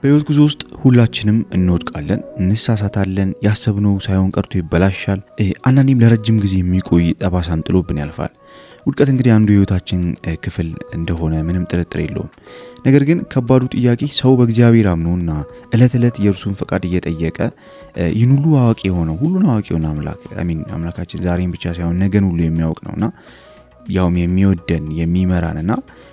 በህይወት ጉዞ ውስጥ ሁላችንም እንወድቃለን፣ እንሳሳታለን፣ ያሰብነው ሳይሆን ቀርቶ ይበላሻል። አንዳንዴም ለረጅም ጊዜ የሚቆይ ጠባሳም ጥሎብን ያልፋል። ውድቀት እንግዲህ አንዱ የህይወታችን ክፍል እንደሆነ ምንም ጥርጥር የለውም። ነገር ግን ከባዱ ጥያቄ ሰው በእግዚአብሔር አምኖና እለት የእርሱን ፈቃድ እየጠየቀ ይህን ሁሉ አዋቂ የሆነው ሁሉን አዋቂ የሆነ አምላካችን ዛሬን ብቻ ሳይሆን ነገን ሁሉ የሚያውቅ ነውና ያውም የሚወደን የሚመራንና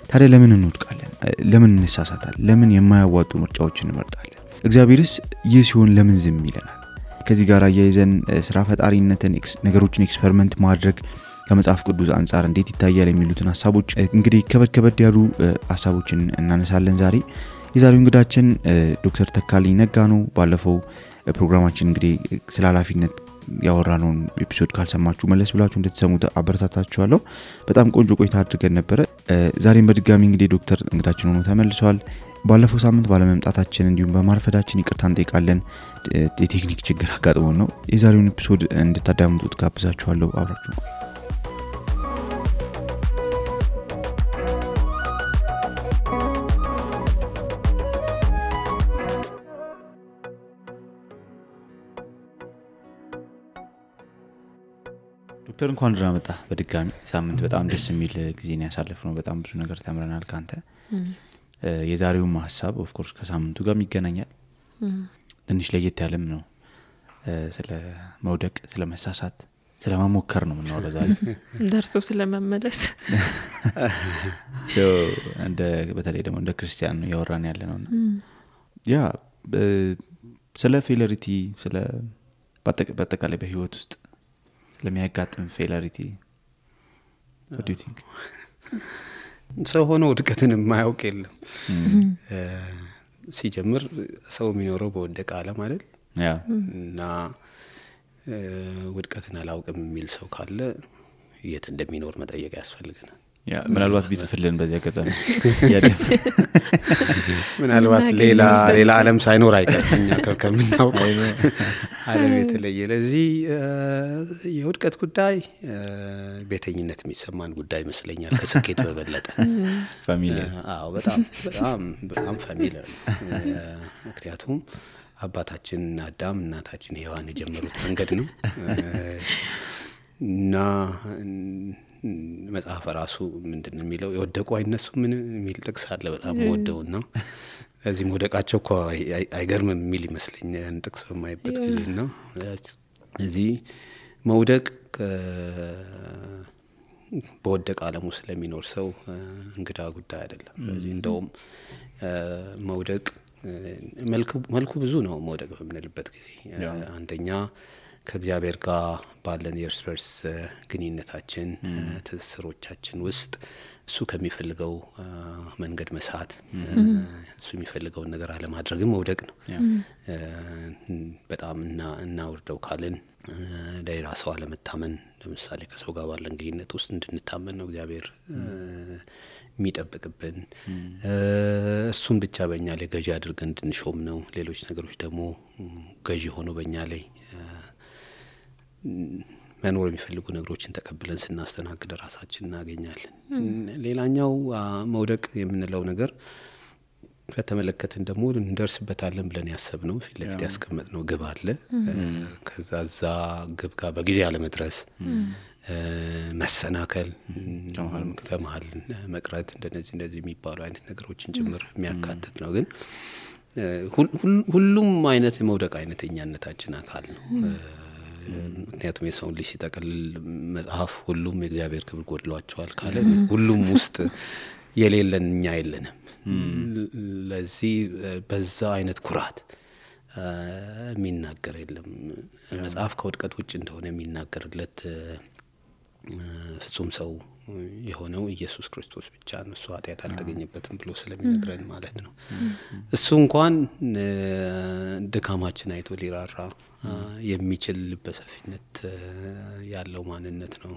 ታዲያ ለምን እንወድቃለን? ለምን እንሳሳታለን? ለምን የማያዋጡ ምርጫዎችን እንመርጣለን? እግዚአብሔርስ ይህ ሲሆን ለምን ዝም ይለናል? ከዚህ ጋር አያይዘን ስራ ፈጣሪነትን ነገሮችን ኤክስፐሪመንት ማድረግ ከመጽሐፍ ቅዱስ አንፃር እንዴት ይታያል የሚሉትን ሐሳቦች እንግዲህ ከበድ ያሉ ሐሳቦችን እናነሳለን። የዛሬው እንግዳችን ዶክተር ተካልኝ ነጋ ነው። ባለፈው ፕሮግራማችን እንግዲህ ስለ ኃላፊነት ያወራነውን ኤፒሶድ ካልሰማችሁ መለስ ብላችሁ እንድትሰሙት አበረታታችኋለሁ። በጣም ቆንጆ ቆይታ አድርገን ነበር። ዛሬም በድጋሚ እንግዲህ ዶክተር እንግዳችን ሆኖ ተመልሰዋል። ባለፈው ሳምንት ባለመምጣታችን እንዲሁም በማርፈዳችን ይቅርታ እንጠይቃለን። የቴክኒክ ችግር አጋጥሞን ነው። የዛሬውን ኤፒሶድ እንድታዳምጡት ጋብዛችኋለሁ። አብራችሁ ዶክተር እንኳን ደህና መጣ። በድጋሚ ሳምንት በጣም ደስ የሚል ጊዜ ነው ያሳለፍነው። በጣም ብዙ ነገር ተምረናል ካንተ። የዛሬው ሐሳብ ኦፍ ኮርስ ከሳምንቱ ጋር ይገናኛል። ትንሽ ለየት ያለም ነው። ስለ መውደቅ፣ ስለ መሳሳት፣ ስለ መሞከር ነው የምናወራው ዛሬ። ደርሶ ስለ መመለስ በተለይ ደግሞ እንደ ክርስቲያን ነው ያወራን ያለነውና ስለ ፌለሪቲ ስለ በአጠቃላይ በህይወት ውስጥ ለሚያጋጥም ፌለሪቲ what do you think? ሰው ሆኖ ውድቀትን የማያውቅ የለም። ሲጀምር ሰው የሚኖረው በወደቀ ዓለም አይደል? እና ውድቀትን አላውቅም የሚል ሰው ካለ የት እንደሚኖር መጠየቅ ያስፈልገናል። ምናልባት ቢጽፍልን በዚያ አጋጣሚ ምናልባት ሌላ ዓለም ሳይኖር አይቀርኛ ከምናውቀው ዓለም የተለየ። ለዚህ የውድቀት ጉዳይ ቤተኝነት የሚሰማን ጉዳይ ይመስለኛል ከስኬት በበለጠ። ፋሚሊየር በጣም ፋሚሊየር። ምክንያቱም አባታችን አዳም እናታችን ሔዋን የጀመሩት መንገድ ነው እና መጽሐፍ ራሱ ምንድነው የሚለው? የወደቁ አይነሱ ምን የሚል ጥቅስ አለ በጣም ወደውና እዚህ መውደቃቸው እኮ አይገርምም የሚል ይመስለኛል ጥቅስ በማይበት ጊዜና እዚህ መውደቅ በወደቀ ዓለም ውስጥ ለሚኖር ሰው እንግዳ ጉዳይ አይደለም። ስለዚህ እንደውም መውደቅ መልኩ ብዙ ነው። መውደቅ በምንልበት ጊዜ አንደኛ ከእግዚአብሔር ጋር ባለን የእርስ በርስ ግንኙነታችን ትስስሮቻችን ውስጥ እሱ ከሚፈልገው መንገድ መሳት፣ እሱ የሚፈልገውን ነገር አለማድረግም መውደቅ ነው። በጣም እናውርደው ካልን ለሌላ ሰው አለመታመን፣ ለምሳሌ ከሰው ጋር ባለን ግንኙነት ውስጥ እንድንታመን ነው እግዚአብሔር የሚጠብቅብን። እሱን ብቻ በእኛ ላይ ገዢ አድርገን እንድንሾም ነው። ሌሎች ነገሮች ደግሞ ገዢ ሆኖ በእኛ ላይ መኖር የሚፈልጉ ነገሮችን ተቀብለን ስናስተናግድ ራሳችን እናገኛለን። ሌላኛው መውደቅ የምንለው ነገር ከተመለከትን ደግሞ እንደርስበታለን ብለን ያሰብነው ፊት ለፊት ያስቀመጥነው ግብ አለ። ከዛ ግብ ጋር በጊዜ አለመድረስ፣ መሰናከል፣ ከመሀል መቅረት፣ እንደዚህ የሚባሉ አይነት ነገሮችን ጭምር የሚያካትት ነው። ግን ሁሉም አይነት የመውደቅ አይነተኛነታችን አካል ነው። ምክንያቱም የሰውን ልጅ ሲጠቀልል መጽሐፍ ሁሉም የእግዚአብሔር ክብር ጎድሏቸዋል ካለ ሁሉም ውስጥ የሌለን እኛ የለንም። ለዚህ በዛ አይነት ኩራት የሚናገር የለም። መጽሐፍ ከውድቀት ውጭ እንደሆነ የሚናገርለት ፍጹም ሰው የሆነው ኢየሱስ ክርስቶስ ብቻ ነው። እሱ ኃጢአት አልተገኘበትም ብሎ ስለሚነግረን ማለት ነው። እሱ እንኳን ድካማችን አይቶ ሊራራ የሚችል በሰፊነት ያለው ማንነት ነው።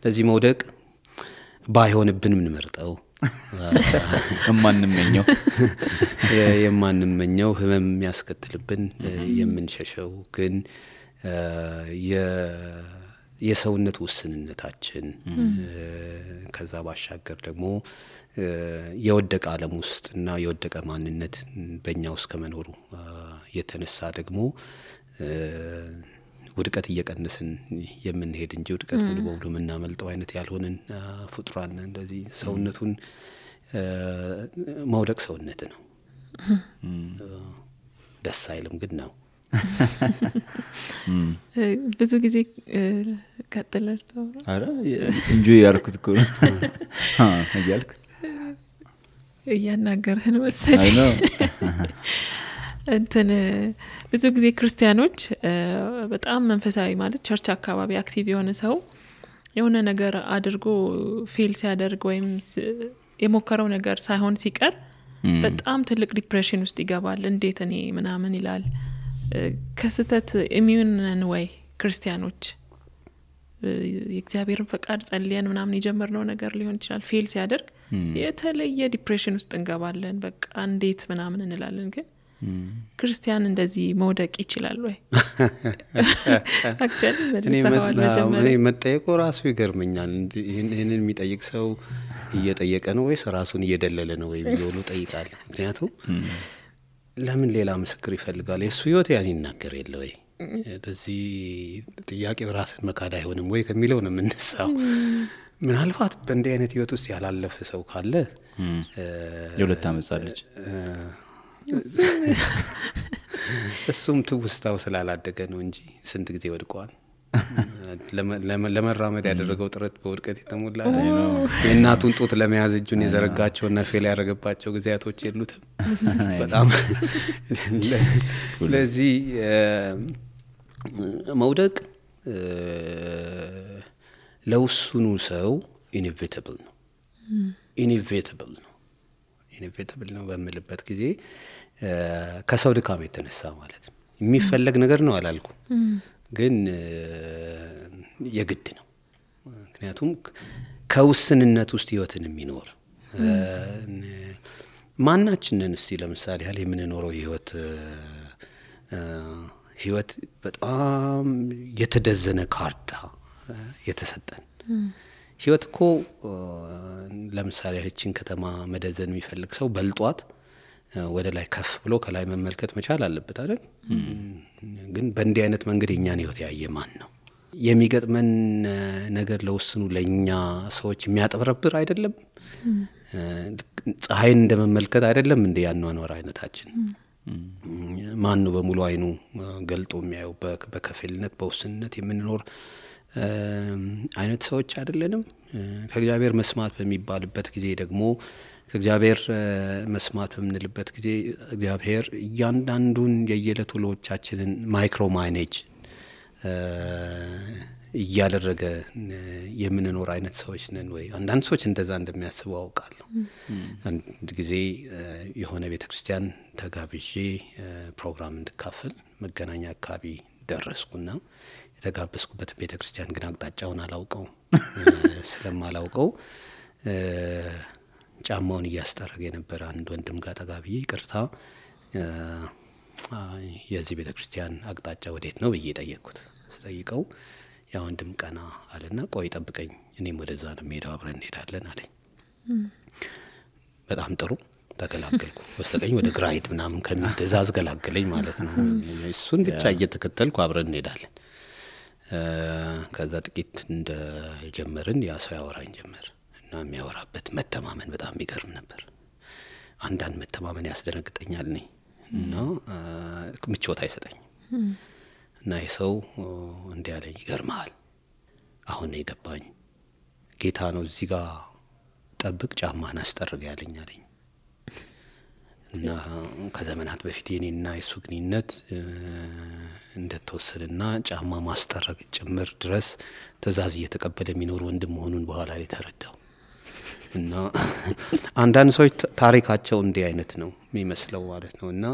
ለዚህ መውደቅ ባይሆንብን ምን መርጠው የማንመኘው ህመም የሚያስከትልብን የምንሸሸው ግን የሰውነት ውስንነታችን ከዛ ባሻገር ደግሞ የወደቀ ዓለም ውስጥ እና የወደቀ ማንነት በእኛ ውስጥ ከመኖሩ የተነሳ ደግሞ ውድቀት እየቀነስን የምንሄድ እንጂ ውድቀት ሙሉ በሙሉ የምናመልጠው አይነት ያልሆነን ፍጡራን እንደዚህ ሰውነቱን መውደቅ ሰውነት ነው። ደስ አይልም ግን ነው። ብዙ ጊዜ ቀጥለልተው አረ ኢንጆይ ያርኩት እኮ እያልኩ እያናገርህን መሰለኝ። እንትን ብዙ ጊዜ ክርስቲያኖች በጣም መንፈሳዊ ማለት ቸርች አካባቢ አክቲቭ የሆነ ሰው የሆነ ነገር አድርጎ ፌል ሲያደርግ ወይም የሞከረው ነገር ሳይሆን ሲቀር በጣም ትልቅ ዲፕሬሽን ውስጥ ይገባል። እንዴት እኔ ምናምን ይላል። ከስተት ኢሚዩን ነን ወይ ክርስቲያኖች? የእግዚአብሔርን ፈቃድ ጸልየን ምናምን የጀመርነው ነገር ሊሆን ይችላል ፌል ሲያደርግ የተለየ ዲፕሬሽን ውስጥ እንገባለን። በቃ እንዴት ምናምን እንላለን። ግን ክርስቲያን እንደዚህ መውደቅ ይችላል ወይ? አክቹአሊ እኔ መጠየቁ ራሱ ይገርመኛል። ይሄንን የሚጠይቅ ሰው እየጠየቀ ነው ወይስ ራሱን እየደለለ ነው ወይ ብሎ ጠይቃል። ምክንያቱም ለምን ሌላ ምስክር ይፈልጋል? የሱ ህይወት ያን ይናገር የለ ወይ? በዚህ ጥያቄው ራስን መካድ አይሆንም ወይ ከሚለው ነው የምንነሳው። ምናልባት በእንዲህ አይነት ህይወት ውስጥ ያላለፈ ሰው ካለ የሁለት አመጻለች እሱም ትውስታው ስላላደገ ነው እንጂ ስንት ጊዜ ወድቋል። ለመራመድ ያደረገው ጥረት በውድቀት የተሞላ ነው። የእናቱን ጡት ለመያዝ እጁን የዘረጋቸውና ፌል ያደረገባቸው ጊዜያቶች የሉትም። በጣም ለዚህ መውደቅ ለውሱኑ ሰው ኢኔቪታብል ነው። ኢኔቪታብል ነው በሚልበት ጊዜ ከሰው ድካም የተነሳ ማለት ነው። የሚፈለግ ነገር ነው አላልኩም፣ ግን የግድ ነው። ምክንያቱም ከውስንነት ውስጥ ህይወትን የሚኖር ማናችንን እስቲ ለምሳሌ ያለ የምንኖረው ህይወት በጣም የተደዘነ ካርታ የተሰጠን ህይወት እኮ ለምሳሌ እቺን ከተማ መደዘን የሚፈልግ ሰው በልጧት ወደ ላይ ከፍ ብሎ ከላይ መመልከት መቻል አለበት አይደል? ግን በእንዲህ አይነት መንገድ የኛን ህይወት ያየ ማን ነው? የሚገጥመን ነገር ለውስኑ ለኛ ሰዎች የሚያጠብረብር አይደለም። ፀሐይን እንደመመልከት አይደለም እንደ ያኗኗር አይነታችን። ማን ነው በሙሉ አይኑ ገልጦ የሚያየው? በከፊልነት በውስንነት የምንኖር አይነት ሰዎች አይደለንም። ከእግዚአብሔር መስማት በሚባልበት ጊዜ ደግሞ ከእግዚአብሔር መስማት በምንልበት ጊዜ እግዚአብሔር እያንዳንዱን የየዕለት ውሎቻችንን ማይክሮ ማኔጅ እያደረገ የምንኖር አይነት ሰዎች ነን ወይ? አንዳንድ ሰዎች እንደዛ እንደሚያስቡ አውቃለሁ። አንድ ጊዜ የሆነ ቤተክርስቲያን ተጋብዤ ፕሮግራም እንድካፈል መገናኛ አካባቢ ደረስኩና የተጋበዝኩበት ቤተክርስቲያን ግን አቅጣጫውን አላውቀው። ስለማላውቀው ጫማውን እያስጠረገ የነበረ አንድ ወንድም ጋር ተጋብዬ ይቅርታ የዚህ ቤተክርስቲያን አቅጣጫ ወዴት ነው ብዬ ጠየቅኩት። ጠይቀው ያ ወንድም ቀና አለና ቆይ ጠብቀኝ እኔም ወደዛ ነው የምሄደው አብረን እንሄዳለን አለኝ። በጣም ጥሩ ተገላገልኩ። በስተቀኝ ወደ ግራ ሂድ ምናምን ከሚል ትእዛዝ ገላገለኝ ማለት ነው። እሱን ብቻ እየተከተልኩ አብረን እንሄዳለን። ከዛ ጥቂት እንደጀመርን ያ ሰው ያወራኝ ጀመር እና የሚያወራበት መተማመን በጣም ይገርም ነበር። አንዳንድ መተማመን ያስደነግጠኛል እኔ እና ምቾት አይሰጠኝም። እና የሰው እንዲህ አለኝ፣ ይገርማል አሁን የገባኝ ጌታ ነው እዚህ ጋር ጠብቅ ጫማን አስጠርግ ያለኝ አለኝ። እና ከዘመናት በፊት የኔና የሱ ግንኙነት እንደተወሰነና ጫማ ማስጠረግ ጭምር ድረስ ትእዛዝ እየተቀበለ የሚኖር ወንድም መሆኑን በኋላ ላይ ተረዳው። እና አንዳንድ ሰዎች ታሪካቸው እንዲህ አይነት ነው የሚመስለው ማለት ነው። እና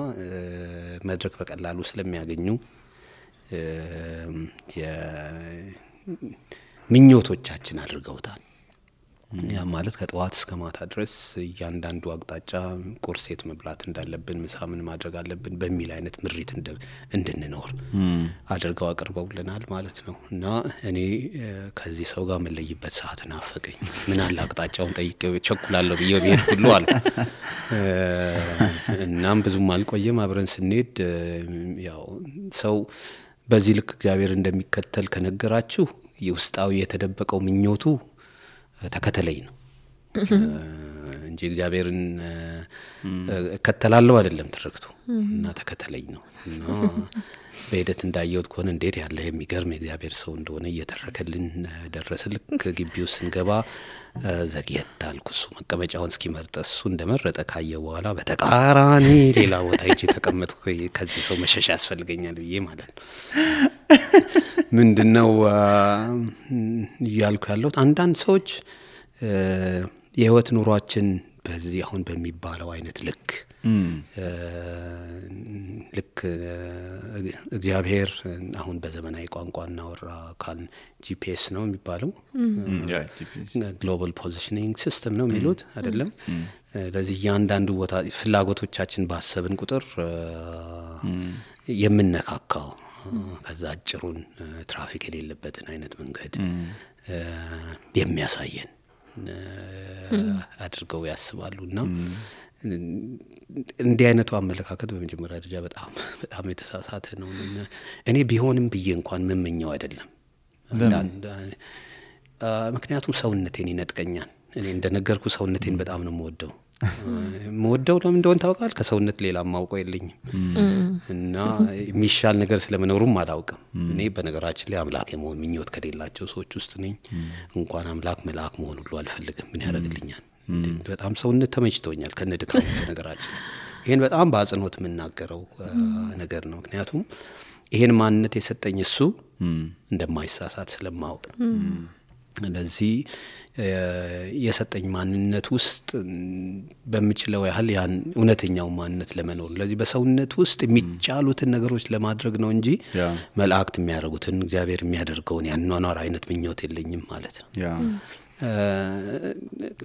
መድረክ በቀላሉ ስለሚያገኙ ምኞቶቻችን አድርገውታል። ያ ማለት ከጠዋት እስከ ማታ ድረስ እያንዳንዱ አቅጣጫ ቁርሴት መብላት እንዳለብን ምሳ ምን ማድረግ አለብን በሚል አይነት ምሪት እንድንኖር አድርገው አቅርበውልናል ማለት ነው። እና እኔ ከዚህ ሰው ጋር መለይበት ሰዓት ናፈቀኝ። ምን አለ አቅጣጫውን ጠይቄው ቸኩላለሁ ብዬ ብሄድ ሁሉ አለ። እናም ብዙም አልቆየም። አብረን ስንሄድ ያው ሰው በዚህ ልክ እግዚአብሔር እንደሚከተል ከነገራችሁ የውስጣዊ የተደበቀው ምኞቱ ተከተለኝ ነው እንጂ እግዚአብሔርን እከተላለሁ አይደለም ትርክቱ እና ተከተለኝ ነው። እና በሂደት እንዳየሁት ከሆነ እንዴት ያለ የሚገርም የእግዚአብሔር ሰው እንደሆነ እየተረከልን ደረሰ። ልክ ግቢው ስንገባ ዘግየት አልኩ። እሱ መቀመጫውን እስኪመርጥ እሱ እንደመረጠ ካየ በኋላ በተቃራኒ ሌላ ቦታ ሄጄ ተቀመጥኩ። ከዚህ ሰው መሸሽ ያስፈልገኛል ብዬ ማለት ነው። ምንድነው እያልኩ ያለሁት አንዳንድ ሰዎች የህይወት ኑሯችን በዚህ አሁን በሚባለው አይነት ልክ እግዚአብሔር አሁን በዘመናዊ ቋንቋ እናወራ ካል ጂፒኤስ ነው የሚባለው ግሎባል ፖዚሽኒንግ ሲስተም ነው የሚሉት አይደለም። ለዚህ እያንዳንዱ ቦታ ፍላጎቶቻችን ባሰብን ቁጥር የምንነካካው ከዛ አጭሩን ትራፊክ የሌለበትን አይነት መንገድ የሚያሳየን አድርገው ያስባሉና እንዲህ አይነቱ አመለካከት በመጀመሪያ ደረጃ በጣም የተሳሳተ ነው። እኔ ቢሆንም ብዬ እንኳን መመኘው አይደለም። ምክንያቱም ሰውነቴን ይነጥቀኛል። እኔ እንደነገርኩ ሰውነቴን በጣም ነው የምወደው ለምን እንደሆነ ታውቃል? ከሰውነት ሌላ ማውቀው የለኝም እና የሚሻል ነገር ስለመኖሩም አላውቅም። እኔ በነገራችን ላይ አምላክ የመሆን ምኞት ከሌላቸው ሰዎች ውስጥ ነኝ። እንኳን አምላክ መልአክ መሆን ሁሉ አልፈልግም። ምን ያደርግልኛል? በጣም ሰውነት ተመችቶኛል ከነድካም ነገራችን። ይሄን በጣም በአጽንኦት የምናገረው ነገር ነው። ምክንያቱም ይሄን ማንነት የሰጠኝ እሱ እንደማይሳሳት ስለማውቅ ስለዚህ የሰጠኝ ማንነት ውስጥ በሚችለው ያህል ያን እውነተኛው ማንነት ለመኖር ስለዚህ በሰውነት ውስጥ የሚቻሉትን ነገሮች ለማድረግ ነው እንጂ መላእክት የሚያደርጉትን እግዚአብሔር የሚያደርገውን ያንኗኗር አይነት ምኞት የለኝም ማለት ነው።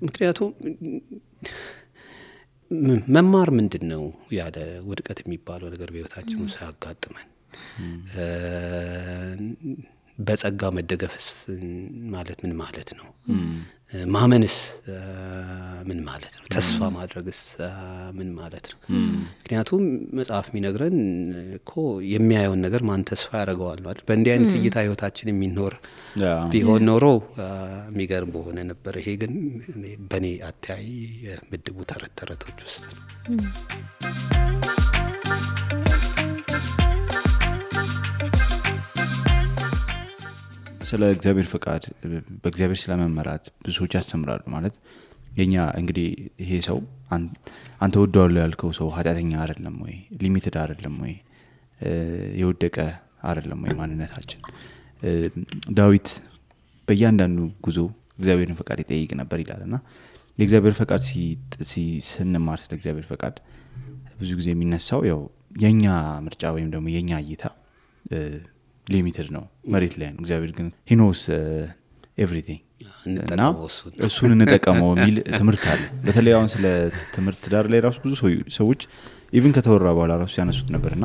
ምክንያቱም መማር ምንድነው ያለ ውድቀት የሚባለው ነገር በህይወታችን ውስጥ ያጋጥመን በጸጋ መደገፍስ ማለት ምን ማለት ነው? ማመንስ ምን ማለት ነው? ተስፋ ማድረግስ ምን ማለት ነው? ምክንያቱም መጽሐፍ የሚነግረን እኮ የሚያየውን ነገር ማን ተስፋ ያደርገዋል ማለት በእንዲህ አይነት እይታ ህይወታችን የሚኖር ቢሆን ኖሮ የሚገርም በሆነ ነበር። ይሄ ግን በኔ አታይ ምድቡ ተረተረቶች ውስጥ ነው። ስለ እግዚአብሔር ፈቃድ በእግዚአብሔር ስለመመራት ብዙ ሰዎች ያስተምራሉ። ማለት የኛ እንግዲህ ይሄ ሰው አንተ ወደዋለሁ ያልከው ሰው ኃጢአተኛ አይደለም ወይ? ሊሚትድ አይደለም ወይ? የወደቀ አይደለም ወይ ማንነታችን? ዳዊት በእያንዳንዱ ጉዞ እግዚአብሔርን ፈቃድ ይጠይቅ ነበር ይላልና የእግዚአብሔር ፈቃድ ስንማር ስለ እግዚአብሔር ፈቃድ ብዙ ጊዜ የሚነሳው ያው የኛ ምርጫ ወይም ደግሞ የኛ እይታ ሊሚትድ ነው፣ መሬት ላይ ነው። እግዚአብሔር ግን he knows everything እና እሱን እንጠቀመው የሚል ትምህርት አለ። በተለይ አሁን ስለ ትምህርት ዳር ላይ ራሱ ብዙ ሰዎች ኢቭን ከተወራ በኋላ ራሱ ያነሱት ነበርና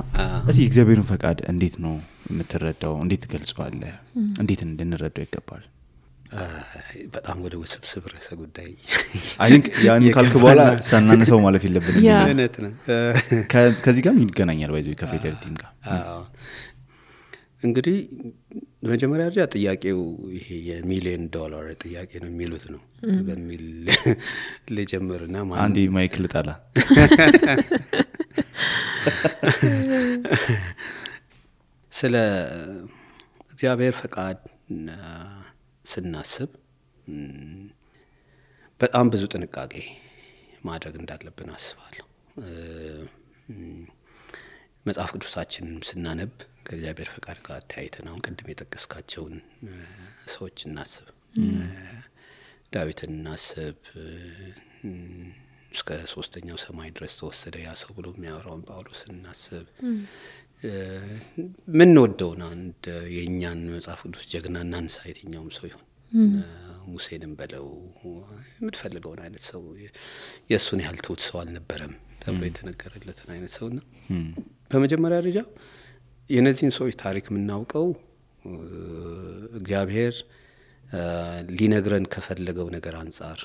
እዚህ እግዚአብሔርን ፈቃድ እንዴት ነው የምትረዳው? እንዴት ትገልጸዋለህ? እንዴት እንድንረዳው ይገባል? በጣም ወደ ውስብስብ ርዕሰ ጉዳይ አይ ቲንክ ያን ካልኩ በኋላ ሳናነሳው ማለፍ የለብንም። እውነት ነው። ከዚህ ጋር ይገናኛል ባይዘው ከፌደሪቲም ጋር እንግዲህ በመጀመሪያ ደረጃ ጥያቄው ይሄ $1,000,000 ጥያቄ ነው የሚሉት ነው በሚል ለጀመርና ማለት አንዲ ማይክል ጣላ ስለ እግዚአብሔር ፈቃድ ስናስብ በጣም ብዙ ጥንቃቄ ማድረግ እንዳለብን አስባለሁ። መጽሐፍ ቅዱሳችንን ስናነብ ከእግዚአብሔር ፈቃድ ጋር ተያይተን አሁን ቅድም የጠቀስካቸውን ሰዎች እናስብ። ዳዊትን እናስብ። እስከ 3ኛው ሰማይ ድረስ ተወሰደ ያ ሰው ብሎ የሚያወራውን ጳውሎስን እናስብ። ምን ወደውና አንድ የኛን መጽሐፍ ቅዱስ ጀግናና አንሳይተኛውም ሰው ይሁን ሙሴንም በለው የምትፈልገውን አይነት ሰው የእሱን ያህል ትሁት ሰው አልነበረም ተብሎ የተነገረለትን አይነት ሰውና በመጀመሪያ ደረጃ የነዚህን ሰዎች ታሪክ የምናውቀው እግዚአብሔር ሊነግረን ከፈለገው ነገር አንጻር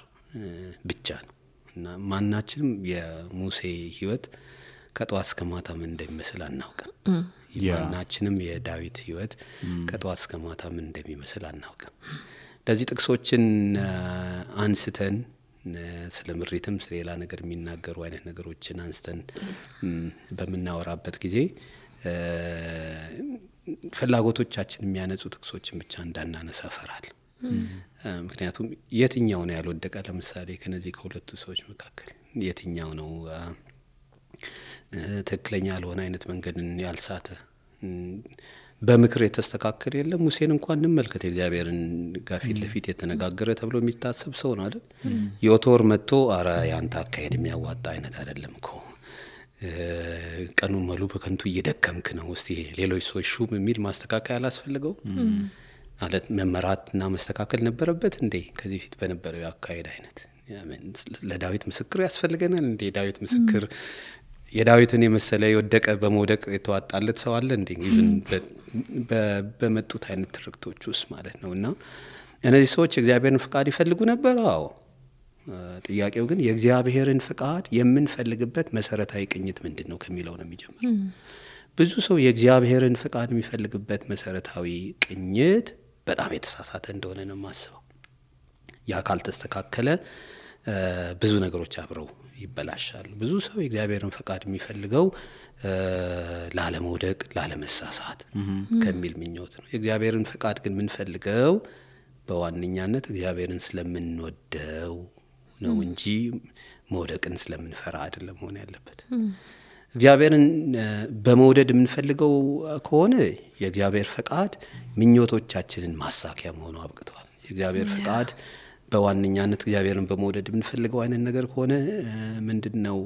ብቻ ነው እና ማናችንም የሙሴ ህይወት ከጧት እስከ ማታ ምን እንደሚመስል አናውቅም። ማናችንም የዳዊት ህይወት ከጧት እስከ ማታ ምን እንደሚመስል አናውቅም። ለዚህ ጥቅሶችን አንስተን ስለ ምሪትም ስለ ሌላ ነገር የሚናገሩ አይነት ነገሮችን አንስተን በመናወራበት ጊዜ ፍላጎቶቻችን የሚያነጹ ጥቅሶችን ብቻ እንዳናነሳ ፈራል። ምክንያቱም የትኛው ነው ያልወደቀ? ለምሳሌ ከነዚህ ከሁለቱ ሰዎች መካከል የትኛው ነው ትክክለኛ ያልሆነ አይነት መንገድን ያልሳተ? በምክር የተስተካከለ የለም። ሙሴን እንኳን እንመልከት። እግዚአብሔርን ጋፊት ለፊት የተነጋገረ ተብሎ የሚታሰብ ሰው ነው አይደል? ዮቶር መጥቶ አረ ያንተ አካሄድ የሚያዋጣ አይነት አይደለም እኮ ቀኑን ሙሉ በከንቱ እየደከምክ ነው፣ እስቲ ሌሎች ሰዎች ሹም የሚል ማስተካከያ አላስፈልገው ማለት መመራትና መስተካከል ነበረበት እንዴ? ከዚህ ፊት በነበረው አካሄድ አይነት ለዳዊት ምስክር ያስፈልገናል እንዴ? ዳዊት ምስክር የዳዊትን የመሰለ የወደቀ በመውደቅ የተዋጣለት ሰው አለ እንዴ? በመጡት አይነት ትርክቶች ውስጥ ማለት ነውና እነዚህ ሰዎች የእግዚአብሔርን ፍቃድ ይፈልጉ ነበር። አዎ። ጥያቄው ግን የእግዚአብሔርን ፍቃድ የምንፈልግበት መሰረታዊ ቅኝት ምንድነው ከሚለው ነው የሚጀምረው። ብዙ ሰው የእግዚአብሔርን ፍቃድ የሚፈልግበት መሰረታዊ ቅኝት በጣም የተሳሳተ እንደሆነ ነው የማስበው። ያ ካልተስተካከለ ብዙ ነገሮች አብረው ይበላሻሉ። ብዙ ሰው የእግዚአብሔርን ፍቃድ የሚፈልገው ላለመውደቅ፣ ላለመሳሳት ከሚል ምኞት ነው። የእግዚአብሔርን ፍቃድ ግን የምንፈልገው በዋነኛነት እግዚአብሔርን ስለምንወደው ነው እንጂ መውደቅን ስለምንፈራ አይደለም መሆን ያለበት። እግዚአብሔርን በመውደድ የምንፈልገው ከሆነ የእግዚአብሔር ፍቃድ ምኞቶቻችንን ማሳኪያ መሆኑ አብቅቷል። የእግዚአብሔር ፍቃድ በዋነኛነት እግዚአብሔርን በመውደድ የምንፈልገው አይነት ነገር ከሆነ ምንድነው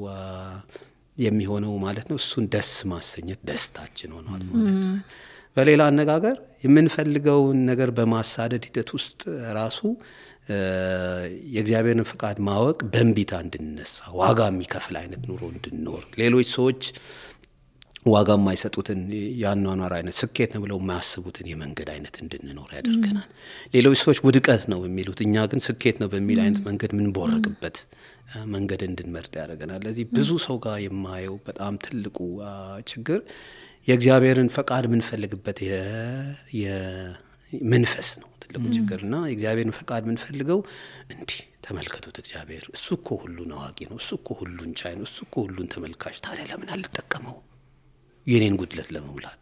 የሚሆነው ማለት ነው? እሱን ደስ ማሰኘት ደስታችን ሆኗል ማለት ነው። በሌላ አነጋገር የምንፈልገውን ነገር በማሳደድ ሂደት ውስጥ ራሱ የእግዚአብሔርን ፍቃድ ማወቅ በእንቢታ እንድንነሳ ዋጋ የሚከፍል አይነት ኑሮ እንድንኖር ሌሎች ሰዎች ዋጋ የማይሰጡትን ያኗኗር አይነት ስኬት ነው ብለው የማያስቡትን የመንገድ አይነት እንድንኖር ያደርገናል። ሌሎች ሰዎች ውድቀት ነው የሚሉት እኛ ግን ስኬት ነው በሚል አይነት መንገድ ምን ቦርቅበት መንገድ እንድንመርጥ ያደርገናል። ለዚህ ብዙ ሰው ጋር የማየው በጣም ትልቁ ችግር የእግዚአብሔርን ፈቃድ የምንፈልግበት የመንፈስ ነው ትልቁ ችግርና የእግዚአብሔርን ፈቃድ የምንፈልገው እንዲህ ተመልከቱት፣ እግዚአብሔር እሱ እኮ ሁሉን አዋቂ ነው፣ እሱ እኮ ሁሉን ቻይ ነው፣ እሱ እኮ ሁሉን ተመልካች፣ ታዲያ ለምን አልተጠቀመው የኔን ጉድለት ለመሙላት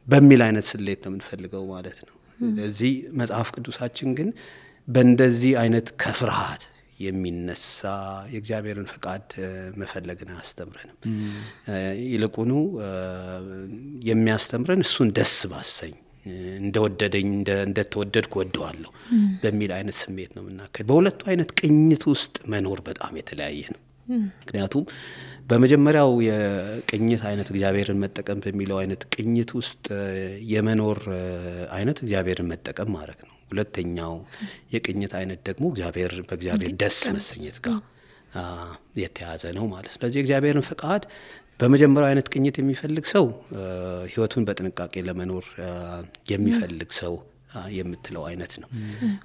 በሚል አይነት ስሌት ነው የምንፈልገው ማለት ነው። ስለዚህ መጽሐፍ ቅዱሳችን ግን በእንደዚህ አይነት ከፍርሃት የሚነሳ የእግዚአብሔርን ፈቃድ መፈለግን አያስተምረንም። ይልቁኑ የሚያስተምረን እሱን ደስ ባሰኝ እንደወደደኝ እንደተወደድኩ ወደዋለሁ በሚል አይነት ስሜት ነው የምናከል። በሁለቱ አይነት ቅኝት ውስጥ መኖር በጣም የተለያየ ነው። ምክንያቱም በመጀመሪያው የቅኝት አይነት እግዚአብሔርን መጠቀም በሚለው አይነት ቅኝት ውስጥ የመኖር አይነት እግዚአብሔርን መጠቀም ማለት ነው። ሁለተኛው የቅኝት አይነት ደግሞ በእግዚአብሔር ደስ መሰኘት ጋር የተያዘ ነው ማለት ነው። ስለዚህ እግዚአብሔርን ፈቃድ በመጀመሪያው አይነት ቅኝት የሚፈልግ ሰው ህይወቱን በጥንቃቄ ለመኖር የሚፈልግ ሰው የምትለው አይነት ነው።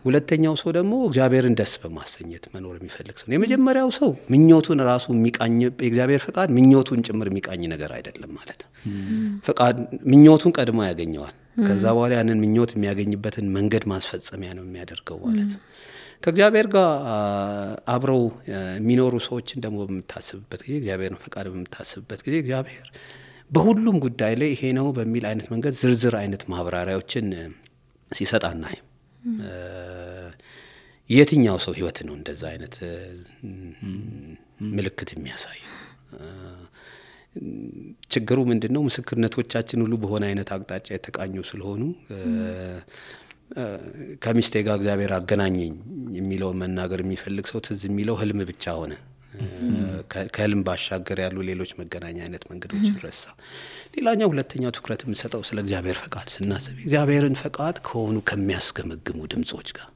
ሁለተኛው ሰው ደግሞ እግዚአብሔርን ደስ በማሰኘት መኖር የሚፈልግ ሰው። የመጀመሪያው ሰው ምኞቱን ራሱ የሚቃኝ የእግዚአብሔር ፈቃድ ምኞቱን ጭምር የሚቃኝ ነገር አይደለም ማለት ነው። ፈቃድ ምኞቱን ቀድሞ ያገኘዋል። ከዛ በኋላ ያንን ምኞት የሚያገኝበትን መንገድ ማስፈጸሚያ ነው የሚያደርገው ማለት ነው። ከእግዚአብሔር ጋር አብረው የሚኖሩ ሰዎችን ደግሞ በምታስብበት ጊዜ እግዚአብሔርን ፈቃድ በምታስብበት ጊዜ እግዚአብሔር በሁሉም ጉዳይ ላይ ይሄ ነው በሚል አይነት መንገድ ዝርዝር አይነት ማብራሪያዎችን ሲሰጣና የትኛው ሰው ህይወት ነው እንደዛ አይነት ምልክት የሚያሳይ? ችግሩ ምንድነው? ምስክርነቶቻችን ሁሉ በሆነ አይነት አቅጣጫ የተቃኙ ስለሆኑ ከሚስቴ ጋር እግዚአብሔር አገናኘኝ የሚለው መናገር የሚፈልግ ሰው ትዝ የሚለው ህልም ብቻ ሆነ። ከህልም ባሻገር ያሉ ሌሎች መገናኛ አይነት መንገዶችን ረሳ። ሌላኛው ሁለተኛው ትኩረት የምንሰጠው ስለ እግዚአብሔር ፈቃድ ስናስብ እግዚአብሔርን ፈቃድ ከሆኑ ከሚያስገመግሙ ድምጾች ጋር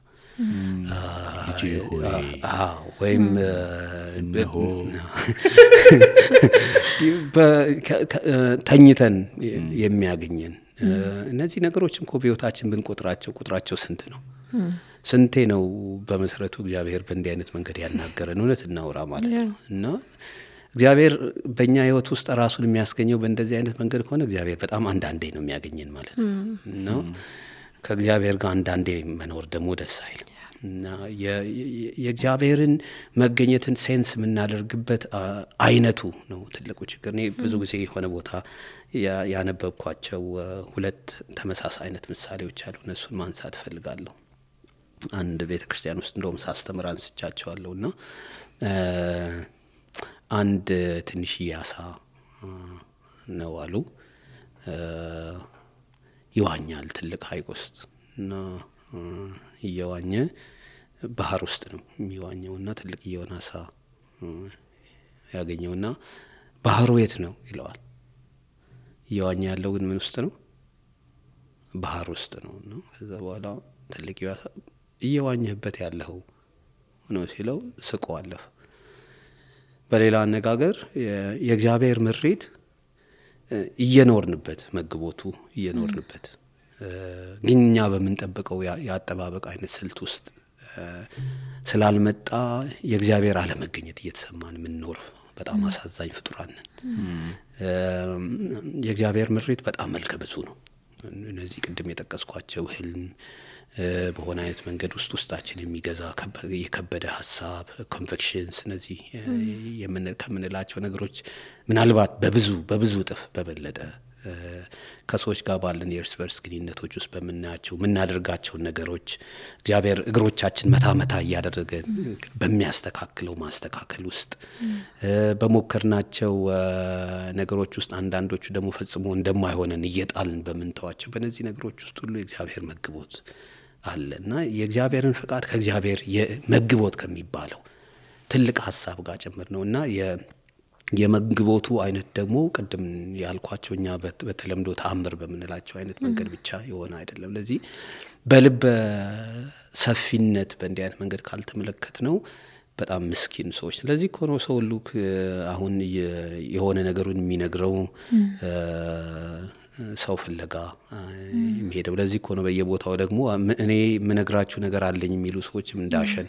ወይም ተኝተን የሚያገኘን እነዚህ ነገሮችን እኮ በሕይወታችን ብንቆጥራቸው ቁጥራቸው ስንት ነው? ስንቴ ነው በመሰረቱ እግዚአብሔር በእንዲህ አይነት መንገድ ያናገረን? እውነት እናውራ ማለት ነው። እና እግዚአብሔር በእኛ ሕይወት ውስጥ ራሱን የሚያስገኘው በእንደዚህ አይነት መንገድ ከሆነ እግዚአብሔር በጣም አንዳንዴ ነው የሚያገኘን ማለት ነው። እና ከእግዚአብሔር ጋር አንዳንዴ መኖር ደግሞ ደስ አይልም። እና የእግዚአብሔርን መገኘትን ሴንስ የምናደርግበት አይነቱ ነው ትልቁ ችግር። እኔ ብዙ ጊዜ የሆነ ቦታ ያነበብኳቸው ሁለት ተመሳሳይ አይነት ምሳሌዎች አሉ። እነሱን ማንሳት እፈልጋለሁ። አንድ ቤተ ክርስቲያን ውስጥ እንደውም ሳስተምር አንስቻቸዋለሁ። እና አንድ ትንሽዬ አሳ ነው አሉ ይዋኛል ትልቅ ሐይቅ ውስጥ እና እየዋኘ ባህር ውስጥ ነው የሚዋኘውና ትልቅ የሆነ አሳ ያገኘውና ባህሩ የት ነው ይለዋል። እየዋኘ ያለው ግን ምን ውስጥ ነው? ባህር ውስጥ ነው። እና ከዛ በኋላ ትልቅ አሳ እየዋኘበት ያለው ነው ሲለው ስቆ አለፈ። በሌላ አነጋገር የእግዚአብሔር ምሪት እየኖርንበት መግቦቱ እየኖርንበት ግን እኛ በምንጠብቀው ያጠባበቅ አይነት ስልት ውስጥ ስላልመጣ የእግዚአብሔር አለመገኘት እየተሰማን የምንኖር በጣም አሳዛኝ ፍጡራን ነን። የእግዚአብሔር ምሪት በጣም መልከ ብዙ ነው። እነዚህ ቅድም የጠቀስኳቸው ህልም በሆነ አይነት መንገድ ውስጣችን የሚገዛ የከበደ ሀሳብ ኮንቪክሽንስ፣ እነዚህ ከምንላቸው ነገሮች ምናልባት በብዙ እጥፍ በበለጠ ከሰዎች ጋር ባለን የእርስ በርስ ግንኙነቶች ውስጥ በምናያቸው የምናደርጋቸውን ነገሮች እግዚአብሔር እግሮቻችን መታ እያደረገ በሚያስተካክለው ማስተካከል ውስጥ በሞከርናቸው ነገሮች ውስጥ አንዳንዶቹ ደግሞ ፈጽሞ እንደማይሆነን እየጣልን በምንተዋቸው በእነዚህ ነገሮች ውስጥ ሁሉ የእግዚአብሔር መግቦት አለ። እና የእግዚአብሔርን ፈቃድ ከእግዚአብሔር የመግቦት ከሚባለው ትልቅ ሀሳብ ጋር ጭምር ነው። እና የመግቦቱ አይነት ደግሞ ቅድም ያልኳቸው እኛ በተለምዶ ተአምር በምንላቸው አይነት መንገድ ብቻ የሆነ አይደለም። ለዚህ በልበ ሰፊነት በእንዲህ አይነት መንገድ ካልተመለከት ነው በጣም ምስኪን ሰዎች። ስለዚህ ኮኖ ሰው ሁሉ አሁን የሆነ ነገሩን የሚነግረው ሰው ፍለጋ የሚሄደው ለዚህ እኮ ነው። በየቦታው ደግሞ እኔ የምነግራችሁ ነገር አለኝ የሚሉ ሰዎችም እንዳሸን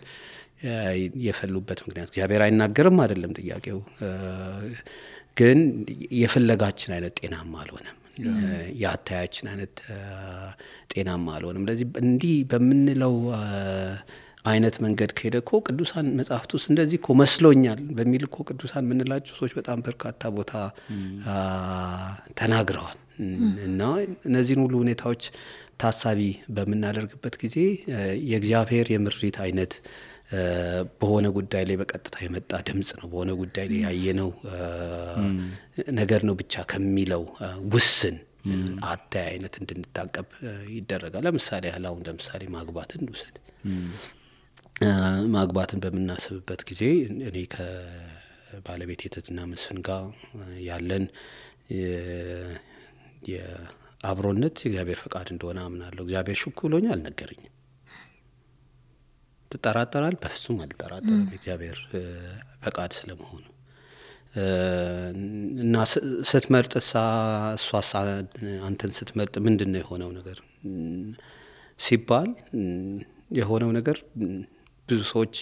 የፈሉበት ምክንያት እግዚአብሔር አይናገርም አይደለም ጥያቄው፣ ግን የፍለጋችን አይነት ጤናማ አልሆነም፣ የአታያችን አይነት ጤናማ አልሆነም። ለዚህ እንዲህ በምንለው አይነት መንገድ ከሄደ እኮ ቅዱሳን መጽሐፍት ውስጥ እንደዚህ እኮ መስሎኛል በሚል እኮ ቅዱሳን የምንላቸው ሰዎች በጣም በርካታ ቦታ ተናግረዋል። እና እነዚህን ሁሉ ሁኔታዎች ታሳቢ በምናደርግበት ጊዜ የእግዚአብሔር የምሪት አይነት በሆነ ጉዳይ ላይ በቀጥታ የመጣ ድምጽ ነው፣ በሆነ ጉዳይ ላይ ያየነው ነገር ነው ብቻ ከሚለው ውስን አታይ አይነት እንድንታቀብ ይደረጋል። ለምሳሌ ለምሳሌ ማግባትን ውሰድ። ማግባትን በምናስብበት ጊዜ እኔ ከባለቤቴ ትትና መስፍን ጋር ያለን የአብሮነት የእግዚአብሔር ፈቃድ እንደሆነ አምናለሁ። እግዚአብሔር ሹክ ብሎኛል፣ አልነገረኝም። ትጠራጠራል? በፍጹም አልጠራጠርም የእግዚአብሔር ፈቃድ ስለመሆኑ። እና ስትመርጥ እሷ አንተን ስትመርጥ ምንድን ነው የሆነው ነገር ሲባል የሆነው ነገር ብዙ ሰዎች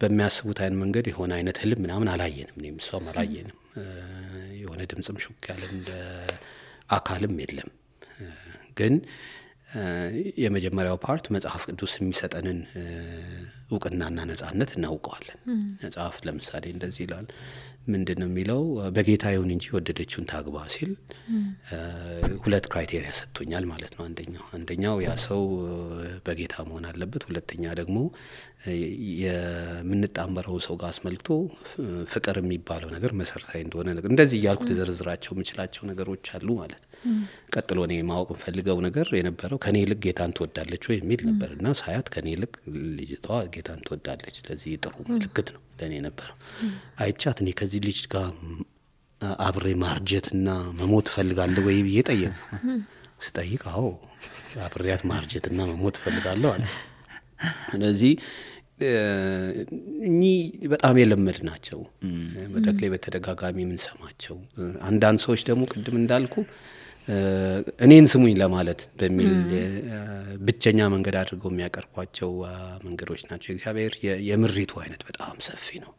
በሚያስቡት አይነት መንገድ የሆነ አይነት ህልም ምናምን አላየንም፣ እኔም እሷም አላየንም። የሆነ ድምጽም ሹክ ያለ እንደ አካልም የለም። ግን የመጀመሪያው ፓርት መጽሐፍ ቅዱስ የሚሰጠንን እውቅናና ነጻነት እናውቀዋለን። መጽሐፍ ለምሳሌ እንደዚህ ይላል። ምንድነው የሚለው? በጌታ ይሁን እንጂ ወደደችውን ታግባ ሲል ሁለት ክራይቴሪያ ሰጥቶኛል ማለት ነው። አንደኛው ያ ሰው በጌታ መሆን አለበት። ሁለተኛ ደግሞ የምንጣመረው ሰው ጋር አስመልክቶ ፍቅር የሚባለው ነገር መሰረታዊ እንደሆነ ነገር እንደዚህ እያልኩ ተዘርዝራቸው የምችላቸው ነገሮች አሉ ማለት። ቀጥሎ እኔ ማወቅ ፈልገው ነገር የነበረው ከኔ ይልቅ ጌታን ትወዳለች ወይ የሚል ነበርና ሳያት ከኔ ይልቅ ልጅቷ ጌታን ትወዳለች። ስለዚህ ጥሩ ምልክት ነው ለኔ ነበረው። አይቻት እኔ ከዚህ ልጅ ጋር አብሬ ማርጀትና መሞት ፈልጋለሁ ወይ ብዬ ጠየቅኩ። ስጠይቅ አዎ አብሬያት ማርጀትና መሞት ፈልጋለሁ አለ። ስለዚህ እኚህ በጣም የለመድ ናቸው መድረክ ላይ በተደጋጋሚ ምን ሰማቸው። አንዳንድ ሰዎች ደግሞ ቅድም እንዳልኩ እኔን ስሙኝ ለማለት በሚል ብቸኛ መንገድ አድርገው የሚያቀርቧቸው መንገዶች ናቸው። እግዚአብሔር የምሪቱ አይነት በጣም ሰፊ ነው።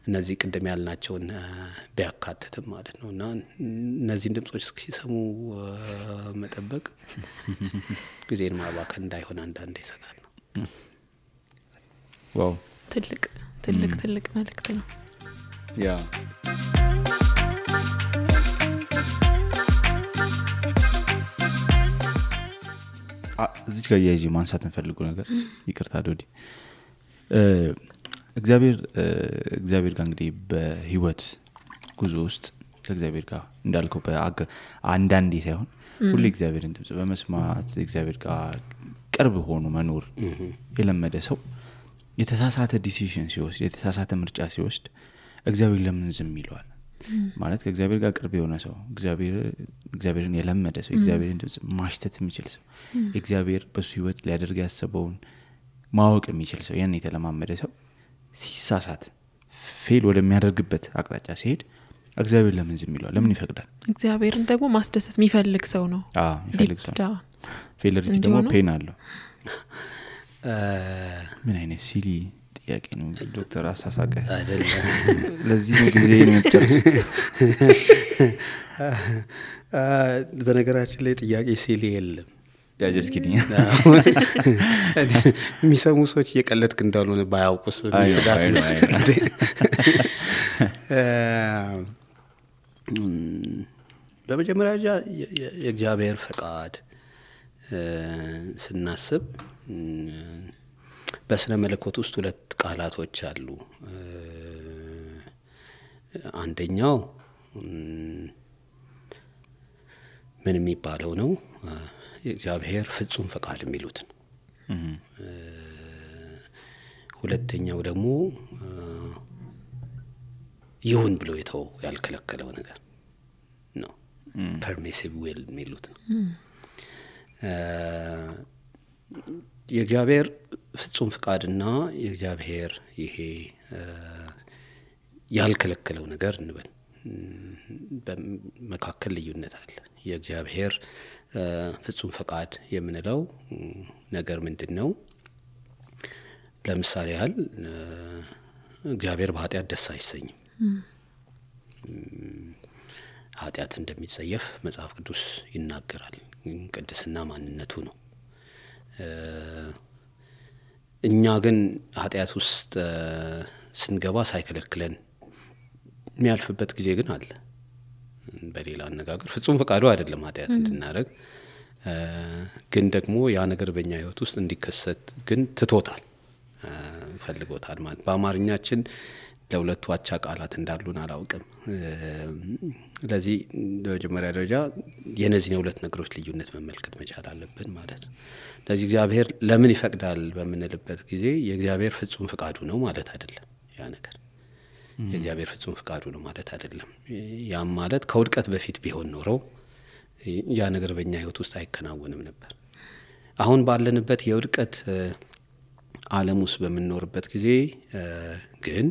እነዚህ ቅድም ያልናቸውን ቢያካትትም ማለት ነው። እና እነዚህን ድምጾች ሲሰሙ መጠበቅ ጊዜን ማባከን እንዳይሆን አንዳንዴ ይሰጋል ነው። ዋው ትልቅ መልእክት ነው። ያ እዚህ ጋር ያይጂ ማንሳት እንፈልገው ነገር ይቅርታ ዶዲ እግዚአብሔር ጋር እንግዲህ በህይወት ጉዞ ውስጥ ከእግዚአብሔር ጋር እንዳልከው አንዳንዴ ሳይሆን ሁሉ እግዚአብሔርን ድምጽ በመስማት እግዚአብሔር ጋር ቅርብ ሆኖ መኖር የለመደ ሰው የተሳሳተ ዲሲዥን ሲወስድ የተሳሳተ ምርጫ ሲወስድ እግዚአብሔር ለምን ዝም ይለዋል? ማለት ከእግዚአብሔር ጋር ቅርብ የሆነ ሰው እግዚአብሔርን የለመደ ሰው እግዚአብሔርን ድምጽ ማሽተት የሚችል ሰው እግዚአብሔር በሱ ህይወት ሊያደርግ ያሰበውን ማወቅ የሚችል ሰው ያን የተለማመደ ሰው ሲሳሳት ፌል ወደሚያደርግበት አቅጣጫ ሲሄድ እግዚአብሔር ለምን ዝም ይለዋል? ለምን ይፈቅዳል? እግዚአብሔርን ደግሞ ማስደሰት የሚፈልግ ሰው ነው። የሚፈልግ ሰው ፌለሪቲ ደግሞ ፔን አለው። ምን አይነት ሲሊ ጥያቄ ነው ዶክተር አሳሳቀ አይደለም። ለዚህ ነው ጊዜ ነው የምትጨርሱት። በነገራችን ላይ ጥያቄ ሲሊ የለም። ያጀስኪኝ የሚሰሙ ሰዎች እየቀለድክ እንዳልሆነ ባያውቁስ በስጋት ነው። በመጀመሪያ የእግዚአብሔር ፈቃድ ስናስብ በስነ መለኮት ውስጥ ሁለት ቃላቶች አሉ። አንደኛው ምን የሚባለው ነው? የእግዚአብሔር ፍጹም ፈቃድ የሚሉት ነው። ሁለተኛው ደግሞ ይሁን ብሎ የተው ያልከለከለው ነገር ነው። ፐርሚሲቭ ዊል የሚሉት ነው። የእግዚአብሔር ፍጹም ፈቃድና የእግዚአብሔር ይሄ ያልከለከለው ነገር እንበል በመካከል ልዩነት አለ። የእግዚአብሔር ፍጹም ፈቃድ የምንለው ነገር ምንድነው? ለምሳሌ ያህል እግዚአብሔር በኃጢአት ደስ አይሰኝም። ኃጢአት እንደሚጸየፍ መጽሐፍ ቅዱስ ይናገራል። ቅድስና ማንነቱ ነው። እኛ ግን ኃጢአት ውስጥ ስንገባ ሳይከለክለን የሚያልፍበት ጊዜ ግን አለ። በሌላ አነጋገር ፍጹም ፈቃዱ አይደለም ኃጢአት እንድናደርግ፣ ግን ደግሞ ያ ነገር በእኛ ህይወት ውስጥ እንዲከሰት ግን ትቶታል፣ ፈልጎታል ማለት። በአማርኛችን ለሁለቱ አቻ ቃላት እንዳሉን አላውቅም። ለዚህ በመጀመሪያ ደረጃ የነዚህ ሁለት ነገሮች ልዩነት መመልከት መቻል አለብን ማለት ነው። ለዚህ እግዚአብሔር ለምን ይፈቅዳል በምንልበት ጊዜ የእግዚአብሔር ፍጹም ፈቃዱ ነው ማለት አይደለም። ያ ነገር የእግዚአብሔር ፍጹም ፈቃዱ ነው ማለት አይደለም። ያም ማለት ከውድቀት በፊት ቢሆን ኖሮ ያ ነገር በእኛ ህይወት ውስጥ አይከናወንም ነበር። አሁን ባለንበት የውድቀት ዓለም ውስጥ በምንኖርበት ጊዜ ግን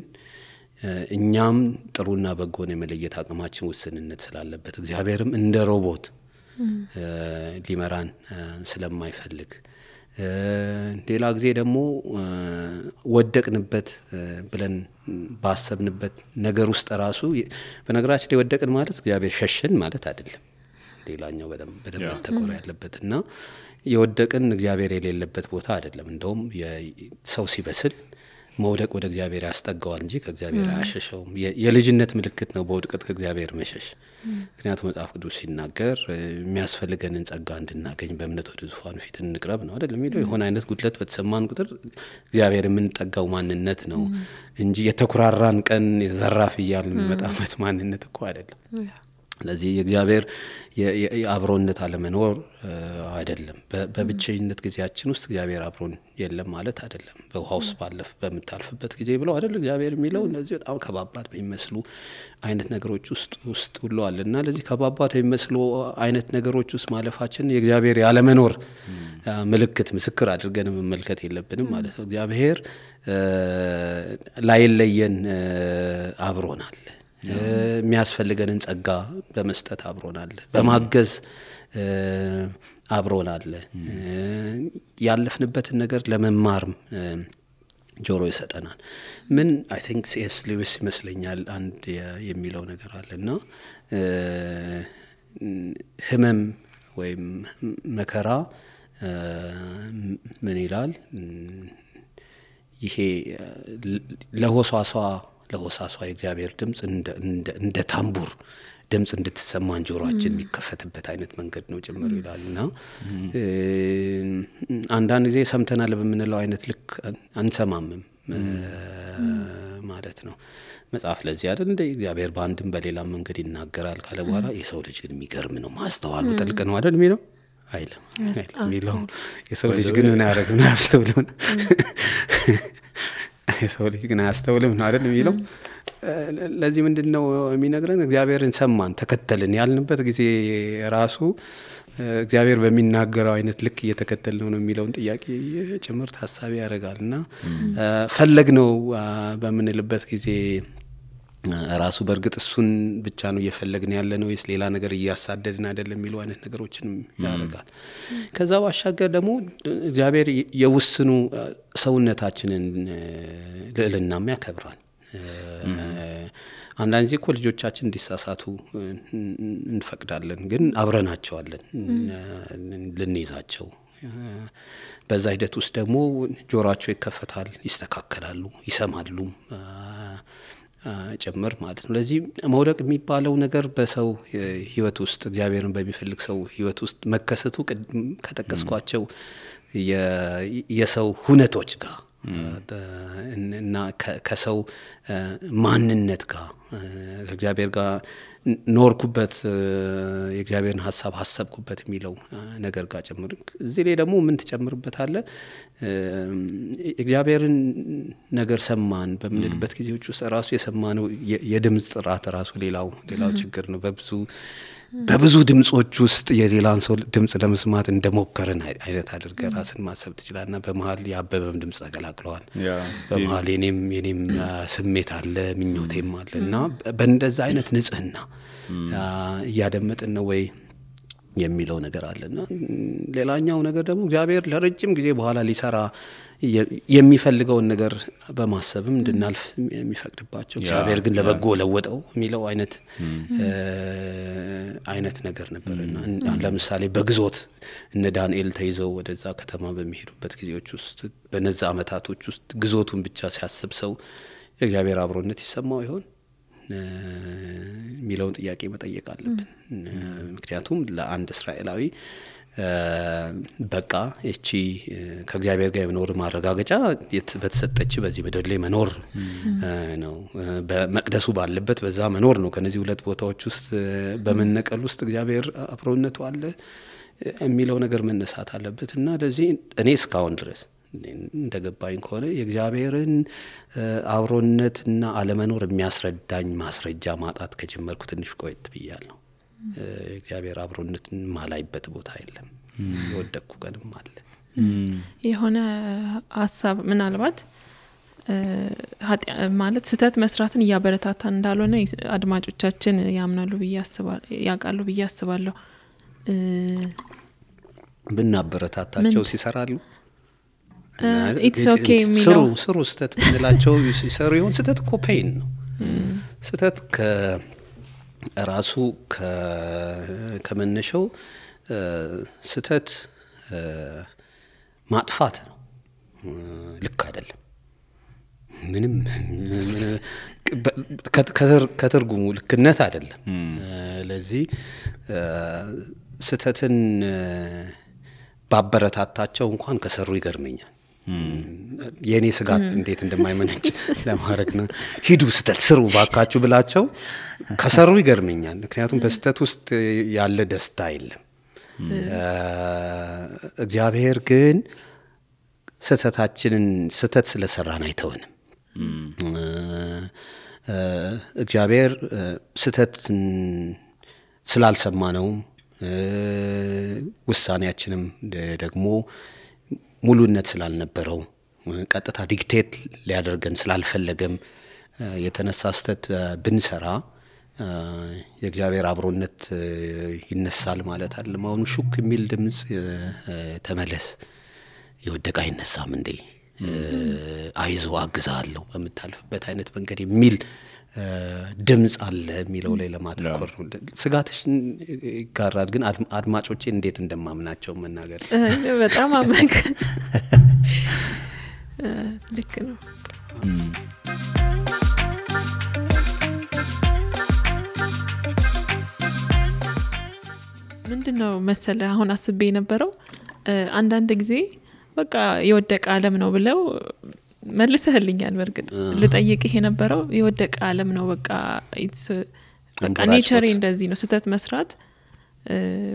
እኛም ጥሩና በጎን የመለየት አቅማችን ውስንነት ስላለበት እግዚአብሔርም እንደ ሮቦት ሊመራን ስለማይፈልግ ሌላ ጊዜ ደግሞ ወደቅንበት ብለን ባሰብንበት ነገር ውስጥ ራሱ በነገራችን ላይ ወደቅን ማለት እግዚአብሔር ሸሸን ማለት አይደለም። ሌላኛው በደንብ ተቆራ ያለበትና የወደቅን እግዚአብሔር የሌለበት ቦታ አይደለም። እንደውም የሰው ሲበስል መውደቅ ወደ እግዚአብሔር ያስጠጋዋል እንጂ ከእግዚአብሔር አያሸሸውም። የልጅነት ምልክት ነው በውድቀት ከእግዚአብሔር መሸሽ። ምክንያቱም መጽሐፍ ቅዱስ ሲናገር የሚያስፈልገንን ጸጋ እንድናገኝ በእምነት ወደ ዙፋኑ ፊት እንቅረብ ነው አይደል የሚለው። የሆነ አይነት ጉድለት በተሰማን ቁጥር እግዚአብሔር የምንጠጋው ማንነት ነው እንጂ የተኩራራን ቀን የዘራፍ እያልን የሚመጣበት ማንነት እኮ አይደለም። ስለዚህ የእግዚአብሔር የአብሮነት አለመኖር አይደለም። በብቸኝነት ጊዜያችን ውስጥ እግዚአብሔር አብሮን የለም ማለት አይደለም። በውሃ ውስጥ በምታልፍበት ጊዜ ብለው አይደል እግዚአብሔር የሚለው እነዚህ በጣም ከባባድ በሚመስሉ አይነት ነገሮች ውስጥ ሁሉ አለና ለዚህ ከባባድ በሚመስሉ አይነት ነገሮች ውስጥ ማለፋችን የእግዚአብሔር ያለመኖር ምልክት ምስክር አድርገን መመልከት የለብንም ማለት ነው። እግዚአብሔር ላይለየን አብሮናል። የሚያስፈልገንን ጸጋ በመስጠት አብሮናል፣ በማገዝ አብሮናል። ያለፍንበትን ነገር ለመማር ጆሮ ይሰጠናል። ምን አይ ቲንክ ሲኤስ ሉዊስ ይመስለኛል አንድ የሚለው ነገር አለና ህመም ወይም መከራ ምን ይላል? ይሄ ለሆሳሷ የእግዚአብሔር ድምጽ እንደ ታምቡር ድምጽ እንድትሰማን ጆሮአችን የሚከፈትበት አይነት መንገድ ነው ጭምር ይላልና አንዳንድ ጊዜ ሰምተናል በምንለው አይነት ልክ አንሰማምም ማለት ነው። መጽሐፍ ለዚህ አይደል እንደ እግዚአብሔር በአንድም በሌላም መንገድ ይናገራል ካለ በኋላ የሰው ልጅ ግን የሚገርም ነው ማስተዋሉ ጥልቅ ነው አይደል የሚለው አይልም የሚለው የሰው ልጅ ግን ምን ያደርግ ነው ያስተውለው የሰው ልጅ ግን አያስተውልም ነው አይደል የሚለው። ለዚህ ምንድነው የሚነግረን? እግዚአብሔርን ሰማን ተከተልን ያልንበት ጊዜ ራሱ እግዚአብሔር በሚናገረው አይነት ልክ እየተከተልን ነው የሚለውን ጥያቄ ጭምር ታሳቢ ያደርጋልና ፈለግነው በምንልበት ጊዜ ራሱ በእርግጥ እሱን ብቻ ነው እየፈለግን ያለ ነው ወይስ ሌላ ነገር እያሳደድን አይደለም የሚሉ አይነት ነገሮችንም ያደርጋል። ከዛ ባሻገር ደግሞ እግዚአብሔር የውስኑ ሰውነታችንን ልዕልናም ያከብራል። አንዳንድ ጊዜ እኮ ልጆቻችን እንዲሳሳቱ እንፈቅዳለን፣ ግን አብረናቸዋለን ልንይዛቸው። በዛ ሂደት ውስጥ ደግሞ ጆሮአቸው ይከፈታል፣ ይስተካከላሉ፣ ይሰማሉ ጭምር ማለት ነው። ለዚህ መውደቅ የሚባለው ነገር በሰው ህይወት ውስጥ እግዚአብሔርን በሚፈልግ ሰው ህይወት ውስጥ መከሰቱ ከጠቀስኳቸው የሰው ሁነቶች ጋር እና ከሰው ማንነት ጋር ከእግዚአብሔር ጋር ኖርኩበት የእግዚአብሔርን ሐሳብ ሐሰብኩበት የሚለው ነገር ጋር ጨምር። እዚህ ላይ ደግሞ ምን ትጨምርበታለህ? እግዚአብሔርን ነገር ሰማን በምንልበት ጊዜዎች ውስጥ ራሱ የሰማነው የድምጽ ጥራት ራሱ ሌላው ችግር ነው። በብዙ ድምጾች ውስጥ የሌላን ሰው ድምጽ ለመስማት እንደሞከርን አይነት አድርገህ ራስን ማሰብ ትችላለና በመሃል የአበበም ድምጽ ተቀላቅለዋል። በመሃል የኔም ስሜት አለ፣ ምኞቴም አለ እና በእንደዛ አይነት ንጽህና እያደመጥን ነው ወይ የሚለው ነገር አለና ሌላኛው ነገር ደግሞ እግዚአብሔር ለረጅም ጊዜ በኋላ ሊሰራ የሚፈልገውን ነገር በማሰብም እንድናልፍ የሚፈቅድባቸው እግዚአብሔር ግን ለበጎ ለወጠው የሚለው አይነት ነገር ነበርና ለምሳሌ በግዞት እነ ዳንኤል ተይዘው ወደዛ ከተማ በሚሄዱበት ጊዜዎች ውስጥ በነዛ አመታቶች ውስጥ ግዞቱን ብቻ ሲያስብ ሰው የእግዚአብሔር አብሮነት ይሰማው ይሆን የሚለውን ጥያቄ መጠየቅ አለብን። ምክንያቱም ለአንድ እስራኤላዊ በቃ እቺ ከእግዚአብሔር ጋር የመኖር ማረጋገጫ በተሰጠች በዚህ ምድር ላይ መኖር ነው። በመቅደሱ ባለበት በዛ መኖር ነው። ከነዚህ ሁለት ቦታዎች ውስጥ በመነቀል ውስጥ እግዚአብሔር አብሮነቱ አለ የሚለው ነገር መነሳት አለበት እና ለዚህ እኔ እስካሁን ድረስ እንደገባኝ ከሆነ የእግዚአብሔርን አብሮነትና አለመኖር የሚያስረዳኝ ማስረጃ ማጣት ከጀመርኩ ትንሽ ቆይት ብያለሁ። እግዚአብሔር አብሮነትን ማላይበት ቦታ የለም። የወደቅኩ ቀንም አለ። የሆነ ሀሳብ ምናልባት ማለት ስህተት መስራትን እያበረታታን እንዳልሆነ አድማጮቻችን ያምናሉ ያውቃሉ ብዬ አስባለሁ። ብናበረታታቸው ሲሰራሉ ኢትስ ኦኬ የሚለው ስሩ ስህተት ብንላቸው ሲሰሩ ይሆን? ስህተት እኮ ፔን ነው። ስህተት ከራሱ ከመነሻው ስህተት ማጥፋት ነው። ልክ አይደለም። ምንም ከትርጉሙ ልክነት አይደለም። ለዚህ ስህተትን ባበረታታቸው እንኳን ከሰሩ ይገርመኛል። የኔ ስጋት እንዴት እንደማይመነጭ ለማድረግ ነው። ሂዱ ስተት ስሩ ባካችሁ ብላቸው ከሰሩ ይገርመኛል። ምክንያቱም በስተት ውስጥ ያለ ደስታ የለም። እግዚአብሔር ግን ስተታችንን ስተት ስለሰራን አይተውንም። እግዚአብሔር ስተትን ስላልሰማነው ውሳኔያችንም ደግሞ ሙሉነት ስላልነበረው ቀጥታ ዲክቴት ሊያደርገን ስላልፈለገም የተነሳ ስተት ብንሰራ የእግዚአብሔር አብሮነት ይነሳል ማለት አይደለም። አሁን ሹክ የሚል ድምጽ ተመለስ የወደቀ አይነሳም እንዴ አይዞ አግዛለሁ በመታልፍበት አይነት መንገድ የሚል ድምጽ አለ የሚለው ላይ ለማተኮር ነው። ስጋትሽን ይጋራል ግን አድማጮቼ እንዴት እንደማምናቸው መናገር በጣም አመንክ ልክ ነው። ምንድነው መሰለ አሁን አስቤ የነበረው አንዳንድ ጊዜ በቃ የወደቀ ዓለም ነው ብለው መልሰህልኛል። በርግጥ ልጠይቅህ የነበረው የወደቀ ዓለም ነው በቃ ኢትስ በቃ ኔቸር እንደዚህ ነው ስተት መስራት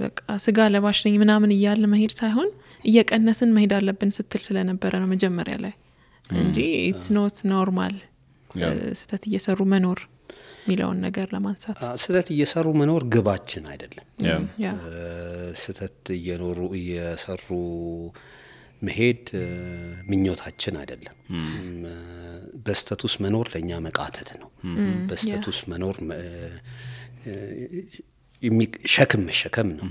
በቃ ስጋ ለባሽ ነኝ ምናምን እያለ መሄድ ሳይሆን እየቀነስን መሄድ አለብን ስትል ስለነበረ ነው መጀመሪያ ላይ እንጂ ኢትስ ኖት ኖርማል ስተት እየሰሩ መኖር ሚለውን ነገር ለማንሳት ስተት እየሰሩ መኖር ግባችን አይደለም። ስተት እየሰሩ መሄድ ምኞታችን አይደለም። በስተቱስ መኖር ለኛ መቃተት ነው። በስተቱስ መኖር ሸክም መሸከም ነው።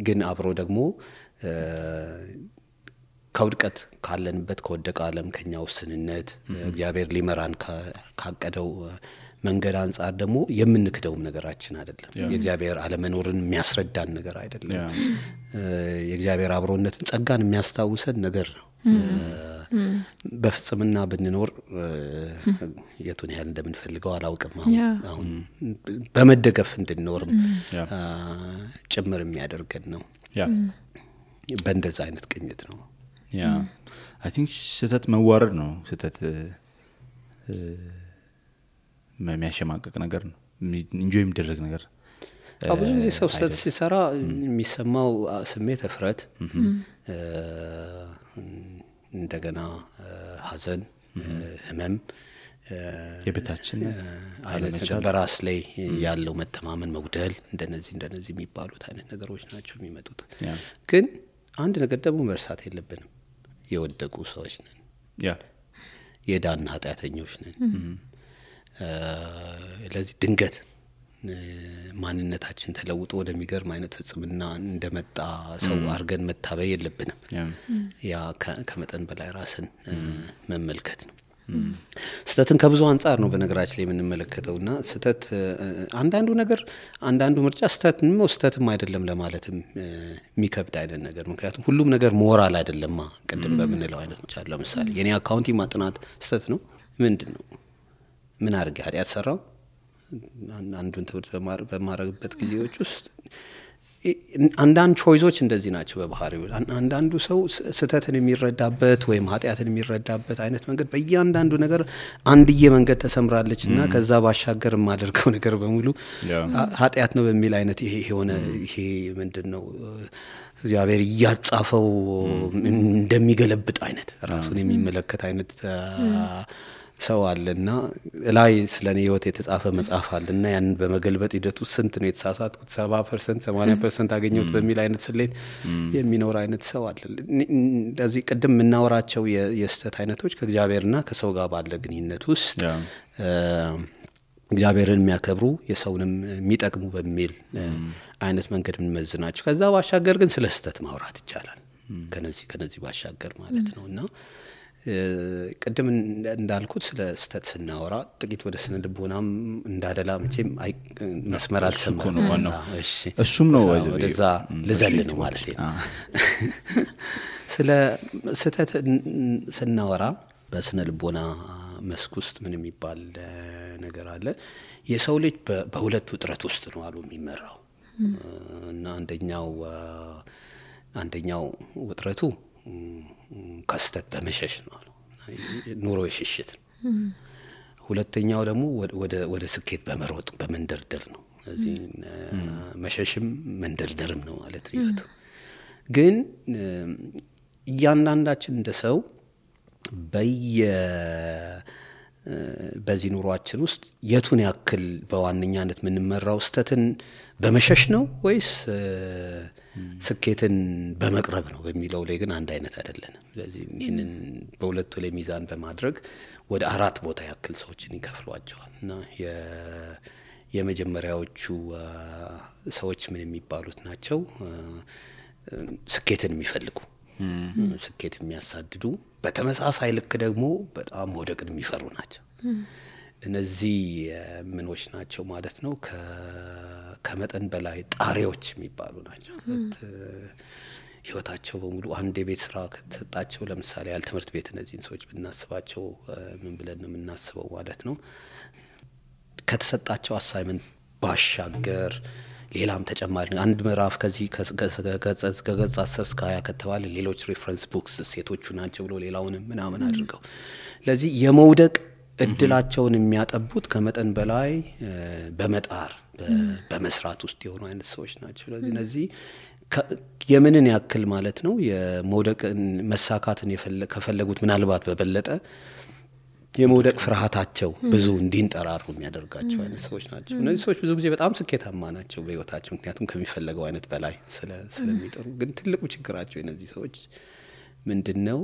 ግን አብሮ ደግሞ ከውድቀት ካለንበት ከወደቀ ዓለም ከኛ ውስንነት እግዚአብሔር ሊመራን ካቀደው መንገድ አንፃር ደግሞ የምንክደውም ነገራችን አይደለም። የእግዚአብሔር አለመኖርን የሚያስረዳን ነገር አይደለም። የእግዚአብሔር አብሮነትን ጸጋን የሚያስታውሰን ነገር ነው። በፍጽምና ብንኖር የቱን ያህል እንደምንፈልገው አላውቅም። አሁን በመደገፍ እንድንኖርም ጭምር የሚያደርገን ነው። በእንደዛ አይነት ቅኝት ነው። I think ስተት መዋረድ ነው። ስተት የሚያሸማቀቅ ነገር ነው። ኢንጆይ የሚደረግ ነገር ብዙ ጊዜ ሰው ስተት ሲሰራ የሚሰማው ስሜት እፍረት፣ እንደገና ሐዘን፣ ህመም፣ የቤታችን አይነት በራስ ላይ ያለው መተማመን መጉደል እንደነዚህ የሚባሉት አይነት ነገሮች ናቸው የሚመጡት። ግን አንድ ነገር ደግሞ መርሳት የለብንም። የወደቁ ሰዎች ነን። የዳን ኃጢአተኞች ነን። ለዚህ ድንገት ማንነታችን ተለውጦ ወደሚገርም አይነት ፍጽምና እንደመጣ ሰው አርገን መታበይ የለብንም። ያ ከመጠን በላይ ራስን መመልከት ነው። ስተትን ከብዙ አንፃር ነው በነገራችን ላይ የምንመለከተውና ስተት አንዳንዱ ምርጫ ስተትም አይደለም ለማለትም የሚከብድ አይነት ነገር። ምክንያቱም ሁሉም ነገር ሞራል አይደለማ። ቅድም በምንለው አይነት መቻል ለምሳሌ የኔ አካውንቲንግ ማጥናት ስተት ነው ምንድነው? ምን አድርጌ ኃጢአት ሰራው? አንዱን ትምህርት በማረግበት ጊዜዎች ውስጥ አንዳንድ ቾይዞች እንደዚህ ናቸው በባህሪው። አንዳንዱ ሰው ስተትን የሚረዳበት ወይም ኃጢአትን የሚረዳበት አይነት መንገድ በእያንዳንዱ ነገር አንድዬ መንገድ ተሰምራለችና ከዛ ባሻገር የማደርገው ነገር በሙሉ ኃጢአት ነው በሚል አይነት ይሄ ምንድነው እግዚአብሔር እያጻፈው እንደሚገለብጥ አይነት ራሱን የሚመለከት አይነት ሰው አለና ላይ ስለኔ ህይወት የተጻፈ መጽሐፍ አለና ያን በመገልበጥ ሂደቱ ስንት ነው የተሳሳትኩት 70% 80% አገኘሁት በሚል አይነት ስሌት የሚኖር አይነት ሰው አለ። እንደዚህ ቅድም የምናወራቸው የስተት አይነቶች ከእግዚአብሔርና ከሰው ጋር ባለ ግንኙነት ውስጥ እግዚአብሔርን የሚያከብሩ የሰውንም የሚጠቅሙ በሚል አይነት መንገድ የምንመዝናቸው። ከዛ ባሻገር ግን ስለ ስተት ማውራት ይቻላል ከነዚህ ባሻገር ማለት ነውና ቅድም እንዳልኩት ስለ ስተት ስናወራ ጥቂት ወደ ስነ ልቦናም እንዳደላ መቼም መስመር አልሰማም። እሱም ነው ወደዛ ልዘል ነው ማለት ነው። ስለ ስተት ስናወራ በስነ ልቦና መስክ ውስጥ ምን የሚባል ነገር አለ? የሰው ልጅ በሁለት ውጥረት ውስጥ ነው አሉ የሚመራው እና አንደኛው አንደኛው ውጥረቱ ከስተት በመሸሽ ነው ኑሮ የሽሽት ሁለተኛው ደግሞ ወደ ስኬት በመሮጥ በመንደርደር ነው ስለዚህ መሸሽም መንደርደርም ነው ማለት ነው ግን እያንዳንዳችን እንደሰው በዚህ ኑሯችን ውስጥ የቱን ያክል በዋነኛነት ምንመራው ስተትን በመሸሽ ነው ወይስ ስኬትን በመቅረብ ነው በሚለው ላይ ግን አንድ አይነት አይደለንም ስለዚህ ይሄንን በሁለቱ ላይ ሚዛን በማድረግ ወደ 4 ቦታ ያክል ሰዎችን ይከፍሏቸዋል እና የመጀመሪያዎቹ ሰዎች ምን የሚባሉት ናቸው ስኬትን የሚፈልጉ ስኬት የሚያሳድዱ በተመሳሳይ ልክ ደግሞ በጣም ወደቅን የሚፈሩ ናቸው እነዚህ ምኖች ናቸው ማለት ነው ከመጠን በላይ ጣሪዎች የሚባሉ ናቸው ህይወታቸው በሙሉ አንድ የቤት ስራ ከተሰጣቸው ለምሳሌ ያል ትምህርት ቤት እነዚህን ሰዎች ብናስባቸው ምን ብለን ነው የምናስበው ማለት ነው ከተሰጣቸው አሳይመንት ባሻገር ሌላም ተጨማሪ አንድ ምዕራፍ ከዚህ ከገጽ 10 እስከ 20 ከተባለ ሌሎች ሪፈረንስ ቡክስ ሴቶቹ ናቸው ብሎ ሌላውንም ምናምን አድርገው ለዚህ የመውደቅ እድላቸውን የሚያጠቡት ከመጠን በላይ በመጣር በመስራት ውስጥ የሆኑ አይነት ሰዎች ናቸው ስለዚህ እነዚህ የምንን ያክል ማለት ነው የመውደቅን መሳካትን ከፈለጉት ምናልባት በበለጠ የመውደቅ ፍርሃታቸው ብዙ እንዲንጠራሩ የሚያደርጋቸው አይነት ሰዎች ናቸው እነዚህ ሰዎች ብዙ ጊዜ በጣም ስኬታማ ናቸው በህይወታቸው ምክንያቱም ከሚፈልገው አይነት በላይ ስለሚጥሩ ግን ትልቁ ችግራቸው እነዚህ ሰዎች ምንድነው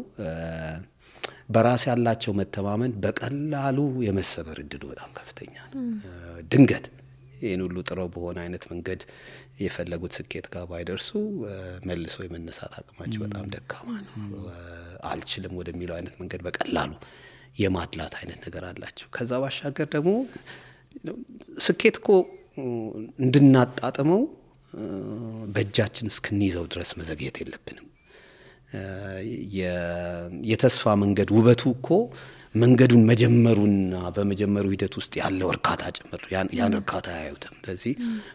በራስ ያላቸው መተማመን በቀላሉ የመሰበር እድሉ በጣም ከፍተኛ ነው ድንገት ይሄን ሁሉ ጥረው በሆነ አይነት መንገድ የፈለጉት ስኬት ጋር ባይደርሱ መልሶ የመነሳት አቅማቸው በጣም ደካማ ነው አልችልም ወደሚለው አይነት መንገድ በቀላሉ የማድላት አይነት ነገር አላቸው ከዛ ባሻገር ደግሞ ስኬትኮ እንድናጣጥመው በእጃችን እስክንይዘው ድረስ መዘግየት የለብንም የተስፋ መንገድ ውበቱ እኮ መንገዱን መጀመሩና በመጀመሩ ሂደት ውስጥ ያለው እርካታ ጭምር ያን እርካታ ያዩትም ስለዚህ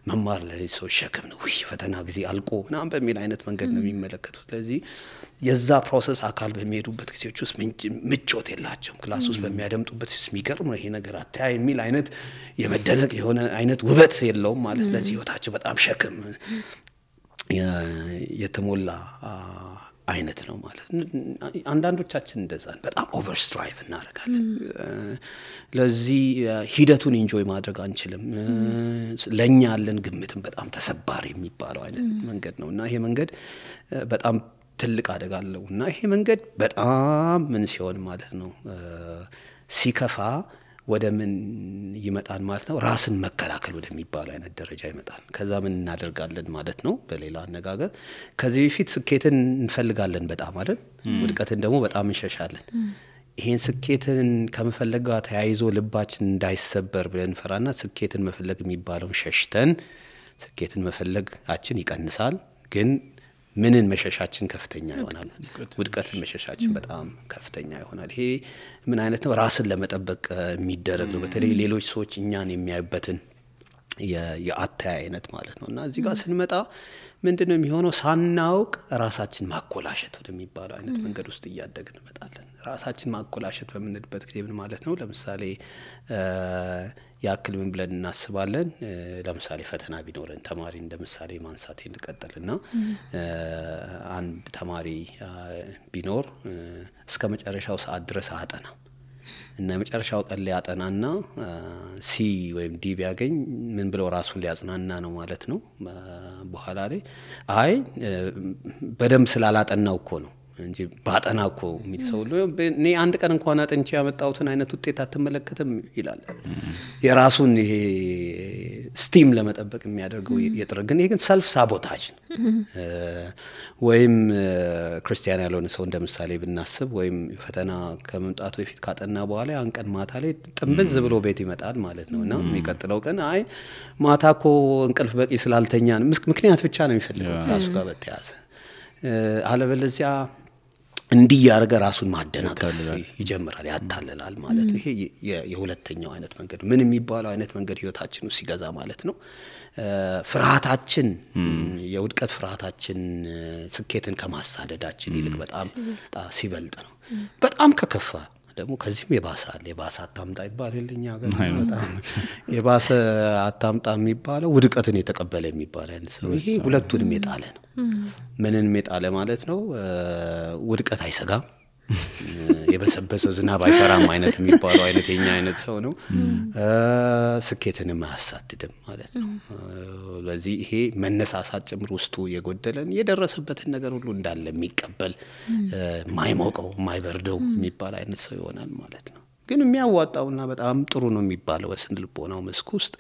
መማር ለዚህ ሰው ሸክም ነው ፈተና ጊዜ አልቆ ምናምን በሚል አይነት መንገድ ነው የሚመለከቱት ስለዚህ የዛ ፕሮሰስ አካል በሚሄዱበት ጊዜዎች ውስጥ ምቾት የላቸውም ክላስ ውስጥ በሚያደምጡበት የሚገርም ይሄ ነገር አታይ የሚል አይነት የመደነቅ የሆነ አይነት ውበት የለውም ማለት ስለዚህ ህይወታቸው በጣም ሸክም የተሞላ አይነት ነው ማለት አንዳንዶቻችን እንደዛ በጣም ኦቨርስትራይቭ እናደርጋለን ለዚህ ሂደቱን ኢንጆይ ማድረግ አንችልም ለኛ ያለን ግምትም በጣም ተሰባሪ የሚባለው አይነት መንገድ ነውና ይሄ መንገድ በጣም ትልቅ አደጋ አለውና ይሄ መንገድ በጣም ምን ሲሆን ማለት ነው ሲከፋ ወደ ምን ይመጣል ማለት ነው ራስን መከላከል ወደሚባለው አይነት ደረጃ ይመጣል ከዛ ምን እናደርጋለን ማለት ነው በሌላ አነጋገር ከዚህ በፊት ስኬትን እንፈልጋለን በጣም አይደል ውድቀትን ደግሞ በጣም እንሸሻለን ይሄን ስኬትን ከመፈለግ ጋር ተያይዞ ልባችን እንዳይሰበር ብለን ፈራና ስኬትን መፈለግ የሚባለው ሸሽተን ስኬትን መፈለጋችን ይቀንሳል ግን ምንን መሸሻችን ከፍተኛ ይሆናል ውድቀትን መሸሻችን በጣም ከፍተኛ ይሆናል ይሄ ምን አይነት ነው ራስን ለመጠበቅ የሚደረግ ነው በተለይ ሌሎች ሰዎች እኛን የሚያዩበትን የአታያ አይነት ማለት ነውና እዚህ ጋር ስንመጣ ምንድነው የሚሆነው ሳናውቅ ራሳችን ማኮላሸት ወደሚባለው አይነት መንገድ ውስጥ እያደግን እንመጣለን ራሳችን ማኮላሸት በምንልበት ጊዜ ምን ማለት ነው ለምሳሌ ያክል ምን ብለን እናስባለን ለምሳሌ ፈተና ቢኖረን ተማሪ እንደምሳሌ ማንሳት እንቀጥልና አንድ ተማሪ ቢኖር እስከ መጨረሻው ሰዓት ድረስ አጠና እና መጨረሻው ቀን ላይ አጠናና ሲ ወይም ዲ ቢያገኝ ምን ብለው ራሱን ሊያጽናና ነው ማለት ነው በኋላ ላይ አይ በደንብ ስላላጠናው እኮ ነው እንጂ ባጠናኮ የሚል ሰው እኔ አንድ ቀን እንኳን አጥንቼ ያመጣሁትን አይነት ውጤት አትመለከተም ይላል የራሱን ይሄ ስቲም ለመጠበቅ የሚያደርገው የጥረግን ይሄ ግን ሰልፍ ሳቦታጅ ወይም ክርስቲያን ያልሆነ ሰው እንደምሳሌ ብናስብ ወይም ፈተና ከመምጣቱ በፊት ካጠና በኋላ ያን ቀን ማታ ላይ ጥምብዝ ብሎ ቤት ይመጣል ማለት ነውና የሚቀጥለው ቀን አይ ማታኮ እንቅልፍ በቂ ስላልተኛ ምክንያት ብቻ ነው የሚፈልገው ራሱ ጋር በተያዘ አለበለዚያ እንዲህ ያረጋ ራሱን ማደናቀፍ ይጀምራል ያታለላል ማለት ነው። ይሄ የሁለተኛው አይነት መንገድ ምን የሚባለው አይነት መንገድ ህይወታችን ውስጥ ሲገዛ ማለት ነው። ፍርሃታችን የውድቀት ፍርሃታችን ስኬትን ከማሳደዳችን ይልቅ በጣም ሲበልጥ ነው። በጣም ከከፋ ደግሞ ከዚህም የባሰ አታምጣ ይባልልኛ ጋር በጣም የባሰ አታምጣ የሚባለው ውድቀትን የተቀበለ የሚባል አይነት ሰው ይሄ ሁለቱንም የጣለ ነው። ምንንም የጣለ ማለት ነው። ውድቀት አይሰጋም፣ የበሰበሰው ዝናብ አይፈራም አይነት የሚባለው አይነት የኛ አይነት ሰው ነው። ስኬትንም አያሳድድም ማለት ነው። ስለዚህ ይሄ መነሳሳት ጭምር ውስጡ የጎደለን የደረሰበትን ነገር ሁሉ እንዳለ የሚቀበል ማይሞቀው ማይበርደው የሚባል አይነት ሰው ይሆናል ማለት ነው። ግን የሚያዋጣውና በጣም ጥሩ ነው የሚባለው በስነ ልቦናው መስክ ውስጥ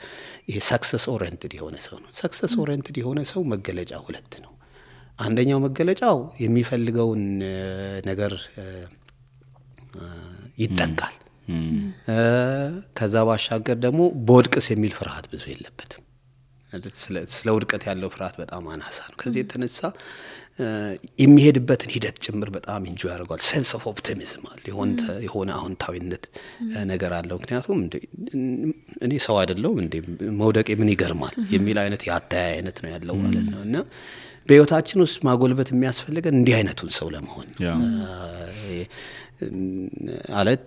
ይሄ ሰክሰስ ኦሪየንትድ የሆነ ሰው ነው። ሰክሰስ ኦሪየንትድ የሆነ ሰው መገለጫ ሁለት ነው። አንደኛው መገለጫው የሚፈልገውን ነገር ይጠጋል። ከዛ ባሻገር ደግሞ በውድቅስ የሚል ፍርሃት ብዙ የለበትም። ስለ ውድቀት ያለው ፍርሃት በጣም አናሳ ነው። ከዚህ የተነሳ የሚሄድበትን ሂደት ጭምር በጣም ኢንጆይ ያደርጋል። ሴንስ ኦፍ ኦፕቲሚዝም አለ፣ የሆነ አዎንታዊነት ነገር አለው። ምክንያቱም እኔ ሰው አይደለሁም እንዴ መውደቄ ምን ይገርማል የሚል አይነት ያታያ አይነት ነው ያለው ማለት ነው። እና በህይወታችን ውስጥ ማጎልበት የሚያስፈልገን እንዲህ አይነቱን ሰው ለመሆን አለት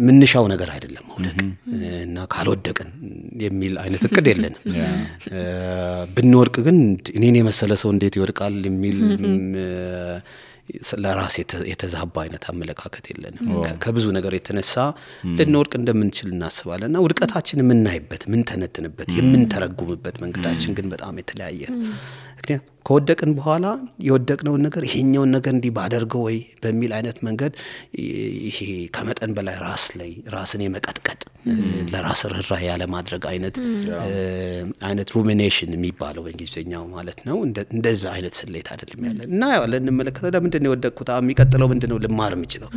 ምንሻው ነገር አይደለም መውደቅ እና ካልወደቅን የሚል አይነት እቅድ የለንም። ብንወድቅ ግን እኔን የመሰለ ሰው እንዴት ይወድቃል የሚል ለራስ የተዛባ አይነት አመለካከት የለንም። ከብዙ ነገር የተነሳ ልንወድቅ እንደምንችል እናስባለንና ውድቀታችን የምናይበት ምን ተነትንበት የምንተረጉምበት መንገዳችን ግን በጣም የተለያየ ነው። ምክንያቱም ከወደቅን በኋላ የወደቅነውን ነገር ይሄኛውን ነገር እንዲህ ባደርገው ወይ በሚል አይነት መንገድ ይሄ ከመጠን በላይ ራስን የመቀጥቀጥ ለራስ ርህራሄ ያለ ማድረግ አይነት ሩሚኔሽን የሚባለው በእንግሊዝኛው ማለት ነው። እንደዛ አይነት ስሌት አይደለም ያለን እና ያለን እንመለከተው ለምንድን ነው የወደቅኩት የሚቀጥለው ምንድነው ልማር የምችለው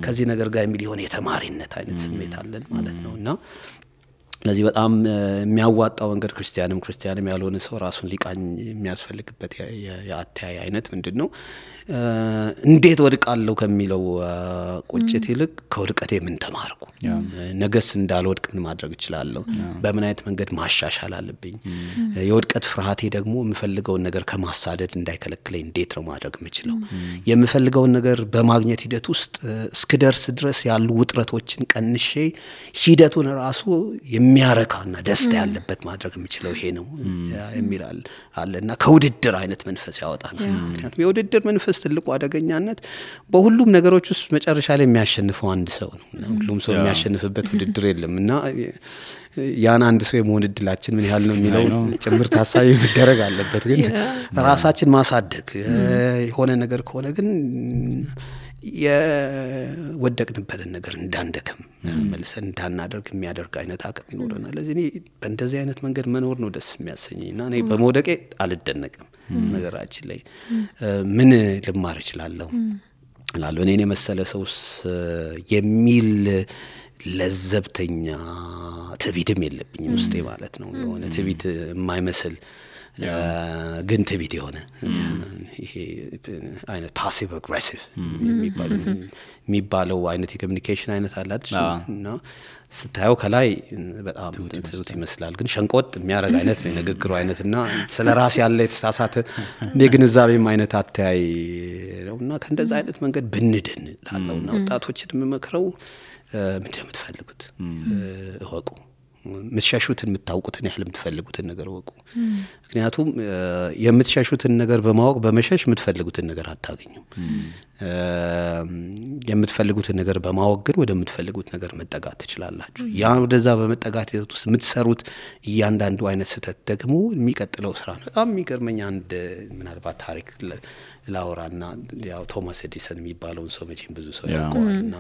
ከዚህ ነገር ጋር የሚል የሆነ የተማሪነት አይነት ስሜት አለን ማለት ነውና ለዚህ በጣም የሚያዋጣው መንገድ ክርስቲያንም ያልሆነ ሰው ራሱን ሊቃኝ የሚያስፈልግበት የአተያይ አይነት ምንድነው እንዴት ወድቃለሁ ከሚለው ቁጭት ይልቅ ከወድቀቴ ምን ተማርኩ ነገስ እንዳልወድቅ ምን ማድረግ እችላለሁ በምን አይነት መንገድ ማሻሻል አለብኝ የወድቀት ፍርሃቴ ደግሞ የምፈልገውን ነገር ከማሳደድ እንዳይከለክለኝ እንዴት ነው ማድረግ የምችለው የምፈልገውን ነገር በማግኘት ሂደት ውስጥ እስክደርስ ድረስ ያሉ ውጥረቶችን ቀንሼ ሂደቱን ራሱ የሚያረካና ደስታ ያለበት ማድረግ የምችለው ይሄ ነው የሚላል አለና ከውድድር አይነት መንፈስ ያወጣናል ምክንያቱም የውድድር መንፈስ ትልቁ አደገኛነት በሁሉም ነገሮች ውስጥ መጨረሻ ላይ የሚያሸንፈው አንድ ሰው ነው ሁሉም ሰው የሚያሸንፍበት ውድድር የለምና ያን አንድ ሰው የመሆን እድላችን ምን ያህል ነው የሚለው ጭምር ታሳቢ መደረግ አለበት ግን ራሳችን ማሳደግ የሆነ ነገር ከሆነ ግን የወደቅንበትን ነገር እንዳንደክም መልሰን እንዳናደርግ የሚያደርግ አይነት አቅም ይኖርናል ለዚህ እኔ በእንደዚህ አይነት መንገድ መኖር ነው ደስ የሚያሰኘኝና እኔ በመውደቄ አልደነቅም ነገራችን ላይ ምን ልማር እችላለሁ እላለሁ እኔን የመሰለ ሰውስ የሚል ለዘብተኛ ትዕቢትም የለብኝም ውስጤ ማለት ነው የሆነ ትዕቢት የማይመስል ግን ትዕቢት የሆነ ይሄ አይነት ፓሲቭ አግሬሲቭ የሚባለው አይነት የኮሙኒኬሽን አይነት አላችሁና ስታየው ከላይ በጣም ትዝት ይመስላል ግን ሸንቆጥ የሚያረግ አይነት ነው ንግግሩ አይነትና ስለራስ ያለ የተሳሳተ የግንዛቤም አይነት አተያይ ነውና ከእንደዛ አይነት መንገድ ብንድን ላለውና ወጣቶችን የምመክረው ምንድነው የምትፈልጉት እወቁ ምትሻሹትን የምታውቁትን ያህል የምትፈልጉትን ነገር ወቁ ምክንያቱም የምትሻሹትን ነገር በማወቅ በመሸሽ የምትፈልጉትን ነገር አታገኙም የምትፈልጉትን ነገር በማወቅ ግን ወደምትፈልጉት ነገር መጠጋት ትችላላችሁ ያ ወደዛ በመጠጋት ውስጥ የምትሰሩት እያንዳንዱ አይነት ስህተት ደግሞ የሚቀጥለው ስራ ነው በጣም የሚገርመኝ አንድ ምናልባት ታሪክ ላውራና ያው ቶማስ ኤዲሰን የሚባለውን ሰው መቼም ብዙ ሰው ያውቀዋልና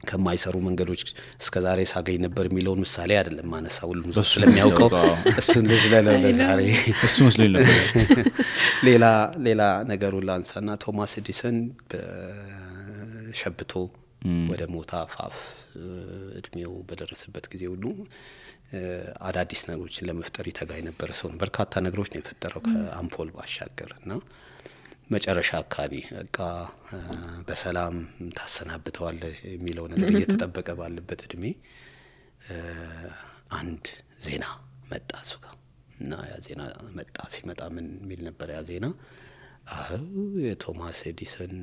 ከማይሰሩ መንገዶች እስከዛሬ ሳገኝ ነበር የሚለውን ምሳሌ አይደለም ማነሳው ሁሉም ሰው ስለሚያውቀው እሱን ለዛሬ እሱ መስሎኝ ነበር ሌላ ነገሩ ላንሳና ቶማስ ኤዲሰን በሸብቶ ወደ ሞት አፋፍ እድሜው በደረሰበት ጊዜ ሁሉ አዳዲስ ነገሮችን ለመፍጠር ይተጋይ ነበር ሰው በርካታ ነገሮች ነው የፈጠረው ከአምፖል ባሻገርና መጨረሻ አካባቢ በቃ በሰላም ታሰናብተዋል የሚለው ነገር እየተጠበቀ ባለበት እድሜ አንድ ዜና መጣ እሱ ጋር እና ያ ዜና መጣ። ሲመጣ ምን የሚል ነበር ያ ዜና? የቶማስ ኤዲሰን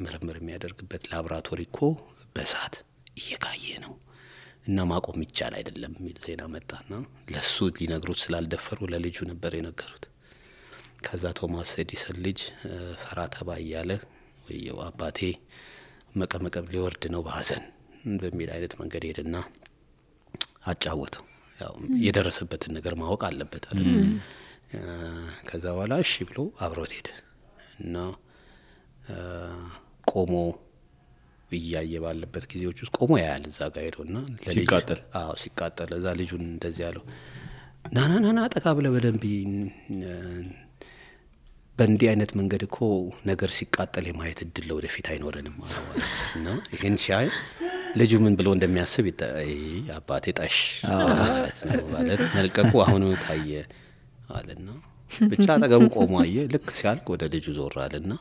ምርምር የሚያደርግበት ላቦራቶሪ እኮ በእሳት እየጋየ ነው እና ማቆም ይቻል አይደለም የሚል ዜና መጣና ለሱ ሊነግሩት ስላልደፈሩ ለልጁ ነበር የነገሩት። ከዛ ቶማስ ኤዲሰን ልጅ ፈራ ተባ እያለ ወየው አባቴ መቀመቀብ ሊወርድ ነው በሐዘን በሚል አይነት መንገድ ሄደና አጫወተው። ያው የደረሰበትን ነገር ማወቅ አለበት አይደል? ከዛ በኋላ እሺ ብሎ አብሮት ሄደ እና ቆሞ እያየ ባለበት ጊዜዎች ውስጥ ቆሞ ያያል እዛ ጋር ሄዶና ሲቃጠል ሲቃጠል እዛ ልጁን እንደዚህ ያለው ናናናና ጠቃ ብለ በደንብ በእንዲህ አይነት መንገድ እኮ ነገር ሲቃጠል የማየት እድል ወደፊት አይኖረንም ማለት ነው። ይሄን ሲያይ ልጁ ምን ብሎ እንደሚያስብ አባቴ ጠሽ ማለት መልቀቁ አሁን ታየ አለና ብቻ አጠገቡ ቆሞ አየ። ልክ ሲያልቅ ወደ ልጁ ዞር አለና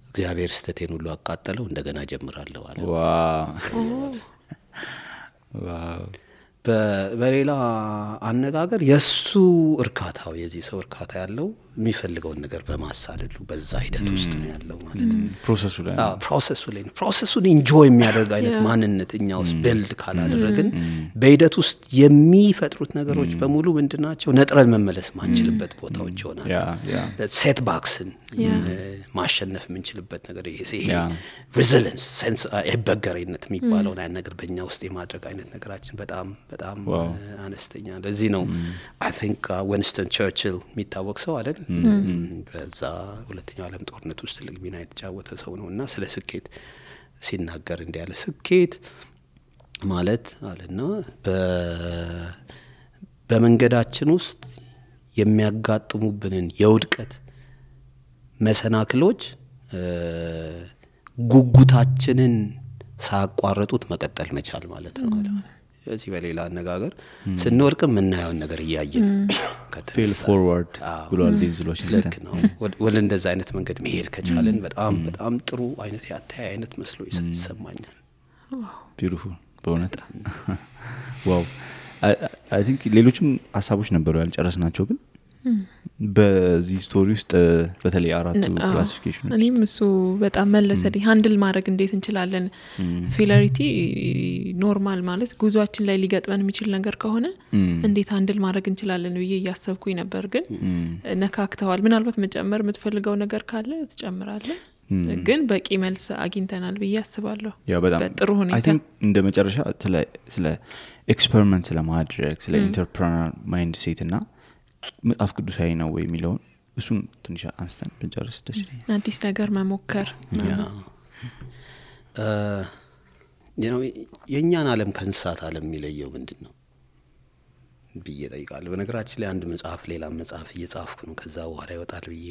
እግዚአብሔር ስተቴን ሁሉ አቃጠለው እንደገና ጀምራለሁ አለ። ዋው በሌላ አነጋገር የሱ እርካታው የዚህ ሰው እርካታ ያለው የሚፈልገውን ነገር በማሳለሉ በዛ ሂደት ውስጥ ነው ያለው ማለት ነው። ፕሮሰሱ ላይ ነው። ፕሮሰሱን ኢንጆይ የሚያደርግ አይነት ማንነት እኛ ውስጥ ቢልድ ካላደረግን በሂደት ውስጥ የሚፈጥሩት ነገሮች በሙሉ ምንድናቸው? ነጥረን መመለስ ማንችልበት ቦታዎች ይሆናል። ሴት ባክስን ማሸነፍ የምንችልበት ነገር ይሄ ሬዚሊየንስ ሴንስ አይበገሬነት የሚባለውን አይነት ነገር በእኛ ውስጥ የማድረግ አይነት ነገራችን በጣም በጣም አነስተኛ። ለዚህ ነው አይ ቲንክ ዊንስተን ቸርችል የሚታወቅ ሰው አይደል? በዛ ሁለተኛው ዓለም ጦርነት ውስጥ ትልቅ ሚና የተጫወተ ሰው ነው እና ስለ ስኬት ሲናገር እንዲህ ያለ ስኬት ማለት አለና በመንገዳችን ውስጥ የሚያጋጥሙብንን የውድቀት መሰናክሎች ጉጉታችንን ሳያቋርጡት መቀጠል መቻል ማለት ነው አለ። ስለዚህ በሌላ አነጋገር ስንወርቅ የምናየውን ነገር እያየን ፌል ፎርዋርድ ብሏል ዲንዝሎች ልክ ነው። ወደ እንደዛ አይነት መንገድ መሄድ ከቻለን በጣም በጣም ጥሩ አይነት ያታይ አይነት መስሎ ይሰማኛል። ቢዩቲፉል በእውነት ዋው። አይ ቲንክ ሌሎችም ሀሳቦች ነበሩ ያልጨረስናቸው ግን በዚህ ስቶሪ ውስጥ በተለይ አራቱ ክላሲፊኬሽኖች እኔም እሱ በጣም መለሰልኝ። ሃንድል ማድረግ እንዴት እንችላለን? ፌለሪቲ ኖርማል ማለት ጉዟችን ላይ ሊገጥመን የሚችል ነገር ከሆነ እንዴት ሃንድል ማድረግ እንችላለን ብዬ እያሰብኩኝ ነበር። ግን ነካክተዋል። ምናልባት መጨመር የምትፈልገው ነገር ካለ ትጨምራለህ። ግን በቂ መልስ አግኝተናል ብዬ አስባለሁ። በጥሩ ሁኔታ አይ ቲንክ እንደ መጨረሻ ስለ ኤክስፐሪመንት ስለማድረግ ስለ ኢንተርፕረነር ማይንድ ሴት እና መጽሐፍ ቅዱሳዊ ነው ወይ የሚለውን እሱን ትንሽ አንስተን ብንጨርስ ደስ ይለኛል። አዲስ ነገር መሞከር የእኛን ዓለም ከእንስሳት ዓለም የሚለየው ምንድን ነው ብዬ ጠይቃለሁ። በነገራችን ላይ አንድ መጽሐፍ ሌላ መጽሐፍ እየጻፍኩ ነው። ከዛ በኋላ ይወጣል ብዬ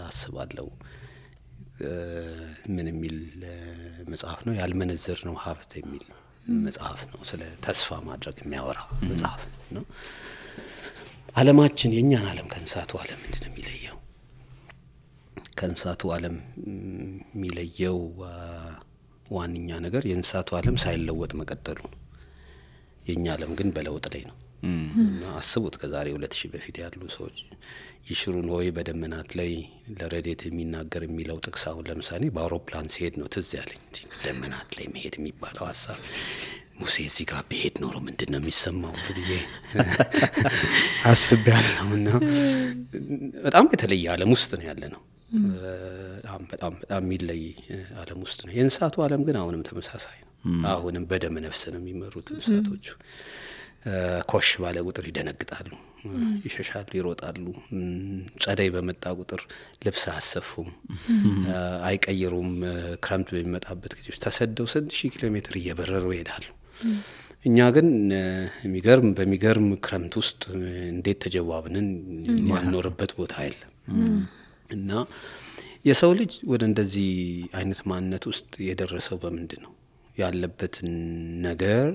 አስባለሁ። ምን የሚል መጽሐፍ ነው? ያልመነዘር ነው ሀብት የሚል መጽሐፍ ነው። ስለ ተስፋ ማድረግ የሚያወራ መጽሐፍ ነው። ዓለማችን የኛን ዓለም ከእንስሳቱ ዓለም ምንድነው የሚለየው? ከእንስሳቱ ዓለም የሚለየው ዋንኛ ነገር የእንስሳቱ ዓለም ሳይለወጥ መቀጠሉ ነው። የኛ ዓለም ግን በለውጥ ላይ ነው። አስቡት ከዛሬ 2000 በፊት ያሉ ሰዎች ይሽሩን ሆይ በደመናት ላይ ለረዴት የሚናገር የሚለው ጥቅስ አሁን ለምሳሌ በአውሮፕላን ሲሄድ ነው ትዝ ያለኝ። ደመናት ላይ መሄድ የሚባለው ሐሳብ ሙሴ እዚህ ጋር ቢሄድ ኖሮ ምንድነው የሚሰማው ብዬ አስቤያለሁና በጣም የተለየ ዓለም ውስጥ ነው ያለነው። በጣም የሚለይ ዓለም ውስጥ ነው። የእንስሳቱ ዓለም ግን አሁንም ተመሳሳይ ነው። አሁንም በደም ነፍስ ነው የሚመሩት እንስሳቶቹ። ኮሽ ባለ ቁጥር ይደነግጣሉ፣ ይሸሻሉ፣ ይሮጣሉ። ጸደይ በመጣ ቁጥር ልብስ አያሰፉም፣ አይቀይሩም። ክረምት በሚመጣበት ጊዜ ተሰደው 1000 ኪሎ ሜትር እየበረሩ ይሄዳሉ። እኛ ግን በሚገርም ክረምት ውስጥ እንዴት ተጀዋብነን ማንኖርበት ቦታ የለም። እና የሰው ልጅ ወደ እንደዚህ አይነት ማንነት ውስጥ የደረሰው በምንድን ነው? ያለበትን ነገር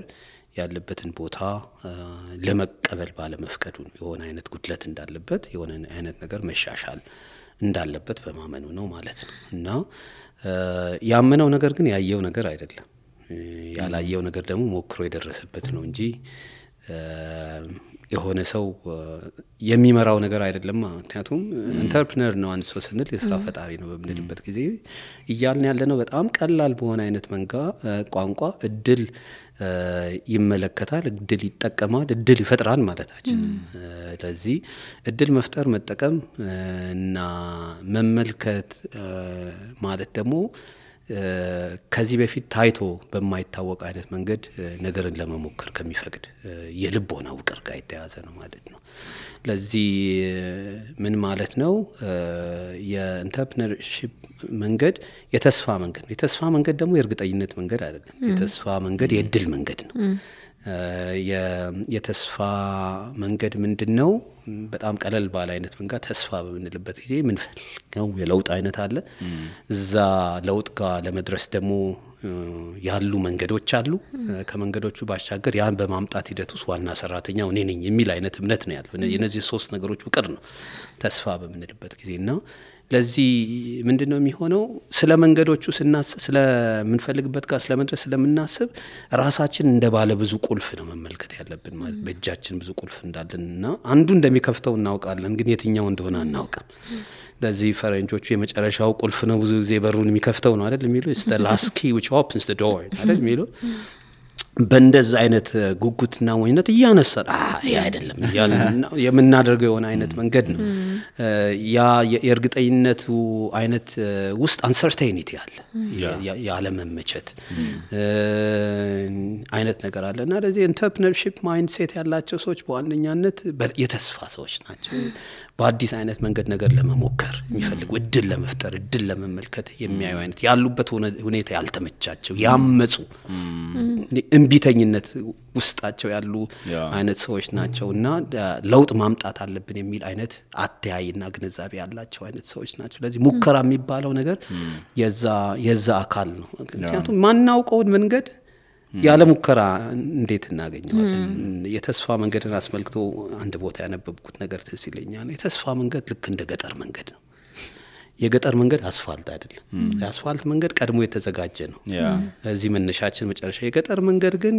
ያለበትን ቦታ ለመቀበል ባለመፍቀዱ የሆነ አይነት ጉድለት እንዳለበት የሆነ አይነት ነገር መሻሻል እንዳለበት በማመኑ ነው ማለት ነው። እና ያመነው ነገር ግን ያየው ነገር አይደለም። ያላየው ነገር ደግሞ ሞክሮ የደረሰበት ነው እንጂ የሆነ ሰው የሚመራው ነገር አይደለም። ምክንያቱም ኢንተርፕረነር ነው አንድ ሰው ስንል የስራ ፈጣሪ ነው በምንልበት ጊዜ እያልን ያለነው በጣም ቀላል በሆነ አይነት ቋንቋ እድል ይመለከታል፣ እድል ይጠቀማል፣ እድል ይፈጥራል ማለታችን። ለዚህ እድል መፍጠር መጠቀም እና መመልከት ማለት ደግሞ ከዚህ በፊት ታይቶ በማይታወቅ አይነት መንገድ ነገርን ለመሞከር ከሚፈቅድ የልቦና ውቅር ጋር የተያዘ ነው ማለት ነው። ለዚህ ምን ማለት ነው? የኢንተርፕረነርሺፕ መንገድ የተስፋ መንገድ ነው። የተስፋ መንገድ ደግሞ የእርግጠኝነት መንገድ አይደለም። የተስፋ መንገድ የእድል መንገድ ነው። የተስፋ መንገድ ምንድነው? በጣም ቀለል ባለ አይነት መንገድ ተስፋ በምንልበት ጊዜ ምን ፈልገው የለውጥ አይነት አለ። እዛ ለውጥ ጋር ለመድረስ ደግሞ ያሉ መንገዶች አሉ። ከመንገዶቹ ባሻገር ያን በማምጣት ሂደት ውስጥ ዋና ሰራተኛው እኔ ነኝ የሚል አይነት እምነት ነው ያለው። የነዚህ ሶስት ነገሮች ውቅር ነው ተስፋ በምንልበት ጊዜና ለዚህ ምንድነው የሚሆነው? ስለ መንገዶቹ ስናስብ ስለምንፈልግበት ጋር ስለመድረስ ስለምናስብ ራሳችን እንደ ባለ ብዙ ቁልፍ ነው መመልከት ያለብን። ማለት በእጃችን ብዙ ቁልፍ እንዳለንና አንዱ እንደሚከፍተው እናውቃለን፣ ግን የትኛው እንደሆነ አናውቅም። ለዚህ ፈረንጆቹ የመጨረሻው ቁልፍ ነው ብዙ ጊዜ በሩን የሚከፍተው ነው አይደል የሚሉ it's the last key which opens the door አይደል የሚሉ በእንደዛ አይነት ጉጉትና ወይነት እያነሳን ይሄ አይደለም የምናደርገው የሆነ አይነት መንገድ ነው። ያ የእርግጠኝነቱ አይነት ውስጥ አንሰርቴኒቲ አለ፣ ያለመመቸት አይነት ነገር አለና ለዚህ ኢንተርፕረነርሺፕ ማይንድሴት ያላቸው ሰዎች በዋነኛነት የተስፋ ሰዎች ናቸው። በአዲስ አይነት መንገድ ነገር ለመሞከር የሚፈልጉ እድል ለመፍጠር እድል ለመመልከት የሚያዩ አይነት ያሉበት ሁኔታ ያልተመቻቸው ያመጹ እንቢተኝነት ውስጣቸው ያሉ አይነት ሰዎች ናቸውና ለውጥ ማምጣት አለብን የሚል አይነት አተያይና ግንዛቤ ያላቸው አይነት ሰዎች ናቸው። ለዚህ ሙከራ የሚባለው ነገር የዛ አካል ነው። ምክንያቱም ማናውቀውን መንገድ ያለ ሙከራ እንዴት እናገኘዋለን? የተስፋ መንገድን አስመልክቶ አንድ ቦታ ያነበብኩት ነገር ትዝ ይለኛል። የተስፋ መንገድ ልክ እንደ ገጠር መንገድ ነው። የገጠር መንገድ አስፋልት አይደለም። የአስፋልት መንገድ ቀድሞ የተዘጋጀ ነው። እዚህ መነሻችን መጨረሻ። የገጠር መንገድ ግን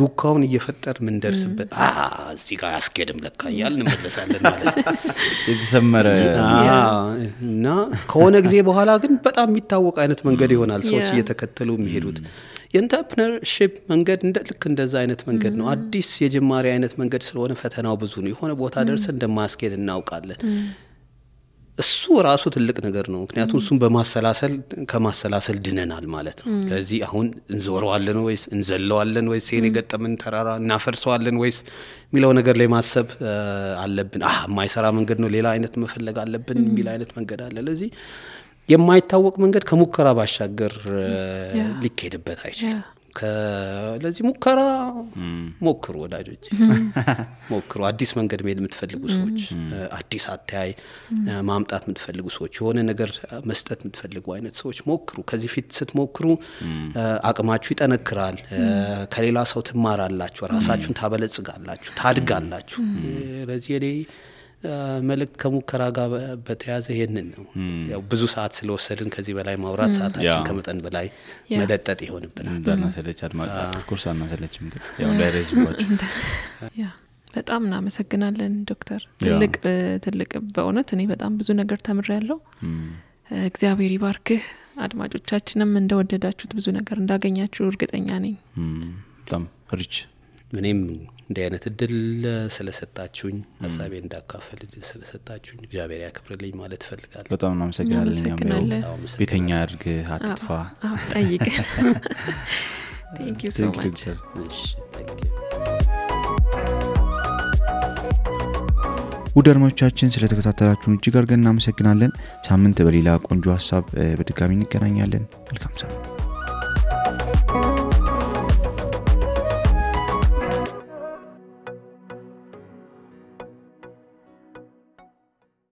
ዱካውን እየፈጠር ምን ደርስበት እዚህ ጋር ያስኬድም ለካ እያልን እንመለሳለን ማለት ነው። የተሰመረ እና ከሆነ ጊዜ በኋላ ግን በጣም የሚታወቅ አይነት መንገድ ይሆናል ሰዎች እየተከተሉ የሚሄዱት። የኢንተርፕረነርሺፕ መንገድ ልክ እንደዛ አይነት መንገድ ነው። አዲስ የጅማሬ አይነት መንገድ ስለሆነ ፈተናው ብዙ ነው። የሆነ ቦታ ደርሰን እንደማስኬድ እናውቃለን። እሱ ራሱ ትልቅ ነገር ነው። ምክንያቱም እሱን ከማሰላሰል ድነናል ማለት ነው። ስለዚህ አሁን እንዞረዋለን ወይስ እንዘለዋለን ወይስ የኔ ገጠመን ተራራ እናፈርሰዋለን ወይስ የሚለው ነገር ላይ ማሰብ አለብን። የማይሰራ መንገድ ነው ሌላ አይነት መፈለግ አለብን የሚል አይነት መንገድ አለ። ለዚህ የማይታወቅ መንገድ ከሙከራ ባሻገር ሊካሄድበት አይችልም። ለዚህ ሙከራ ሞክሩ ወዳጆች፣ ሞክሩ። አዲስ መንገድ መሄድ የምትፈልጉ ሰዎች፣ አዲስ አተያይ ማምጣት የምትፈልጉ ሰዎች፣ የሆነ ነገር መስጠት የምትፈልጉ አይነት ሰዎች ሞክሩ። ከዚህ ፊት ስትሞክሩ አቅማችሁ ይጠነክራል፣ ከሌላ ሰው ትማራላችሁ፣ ራሳችሁን ታበለጽጋላችሁ፣ ታድጋላችሁ። ለዚህ እኔ መልእክት ከሙከራ ጋር በተያዘ ይሄንን ነው። ያው ብዙ ሰዓት ስለወሰድን ከዚህ በላይ ማውራት ሰዓታችን ከመጠን በላይ መለጠጥ ይሆንብናል። እንዳናሰለች ኦፍ ኮርስ አናሰለችም፣ ግን ያው እንዳይረዝባችሁ። በጣም እናመሰግናለን ዶክተር። ትልቅ በእውነት እኔ በጣም ብዙ ነገር ተምሬያለሁ። እግዚአብሔር ይባርክህ። አድማጮቻችንም እንደወደዳችሁት ብዙ ነገር እንዳገኛችሁ እርግጠኛ ነኝ። በጣም ሪች እኔም እንዲህ አይነት እድል ስለሰጣችሁኝ ሀሳቤ እንዳካፈል እድል ስለሰጣችሁኝ እግዚአብሔር ያክብርልኝ ማለት እፈልጋለሁ። በጣም እናመሰግናለን። ቤተኛ አድርግ፣ አትጥፋ፣ ጠይቅ። Thank you so much. ውድ አድማጮቻችን ስለተከታተላችሁን እጅግ አድርገን እናመሰግናለን። ሳምንት በሌላ ቆንጆ ሀሳብ በድጋሚ እንገናኛለን። መልካም ሳምንት።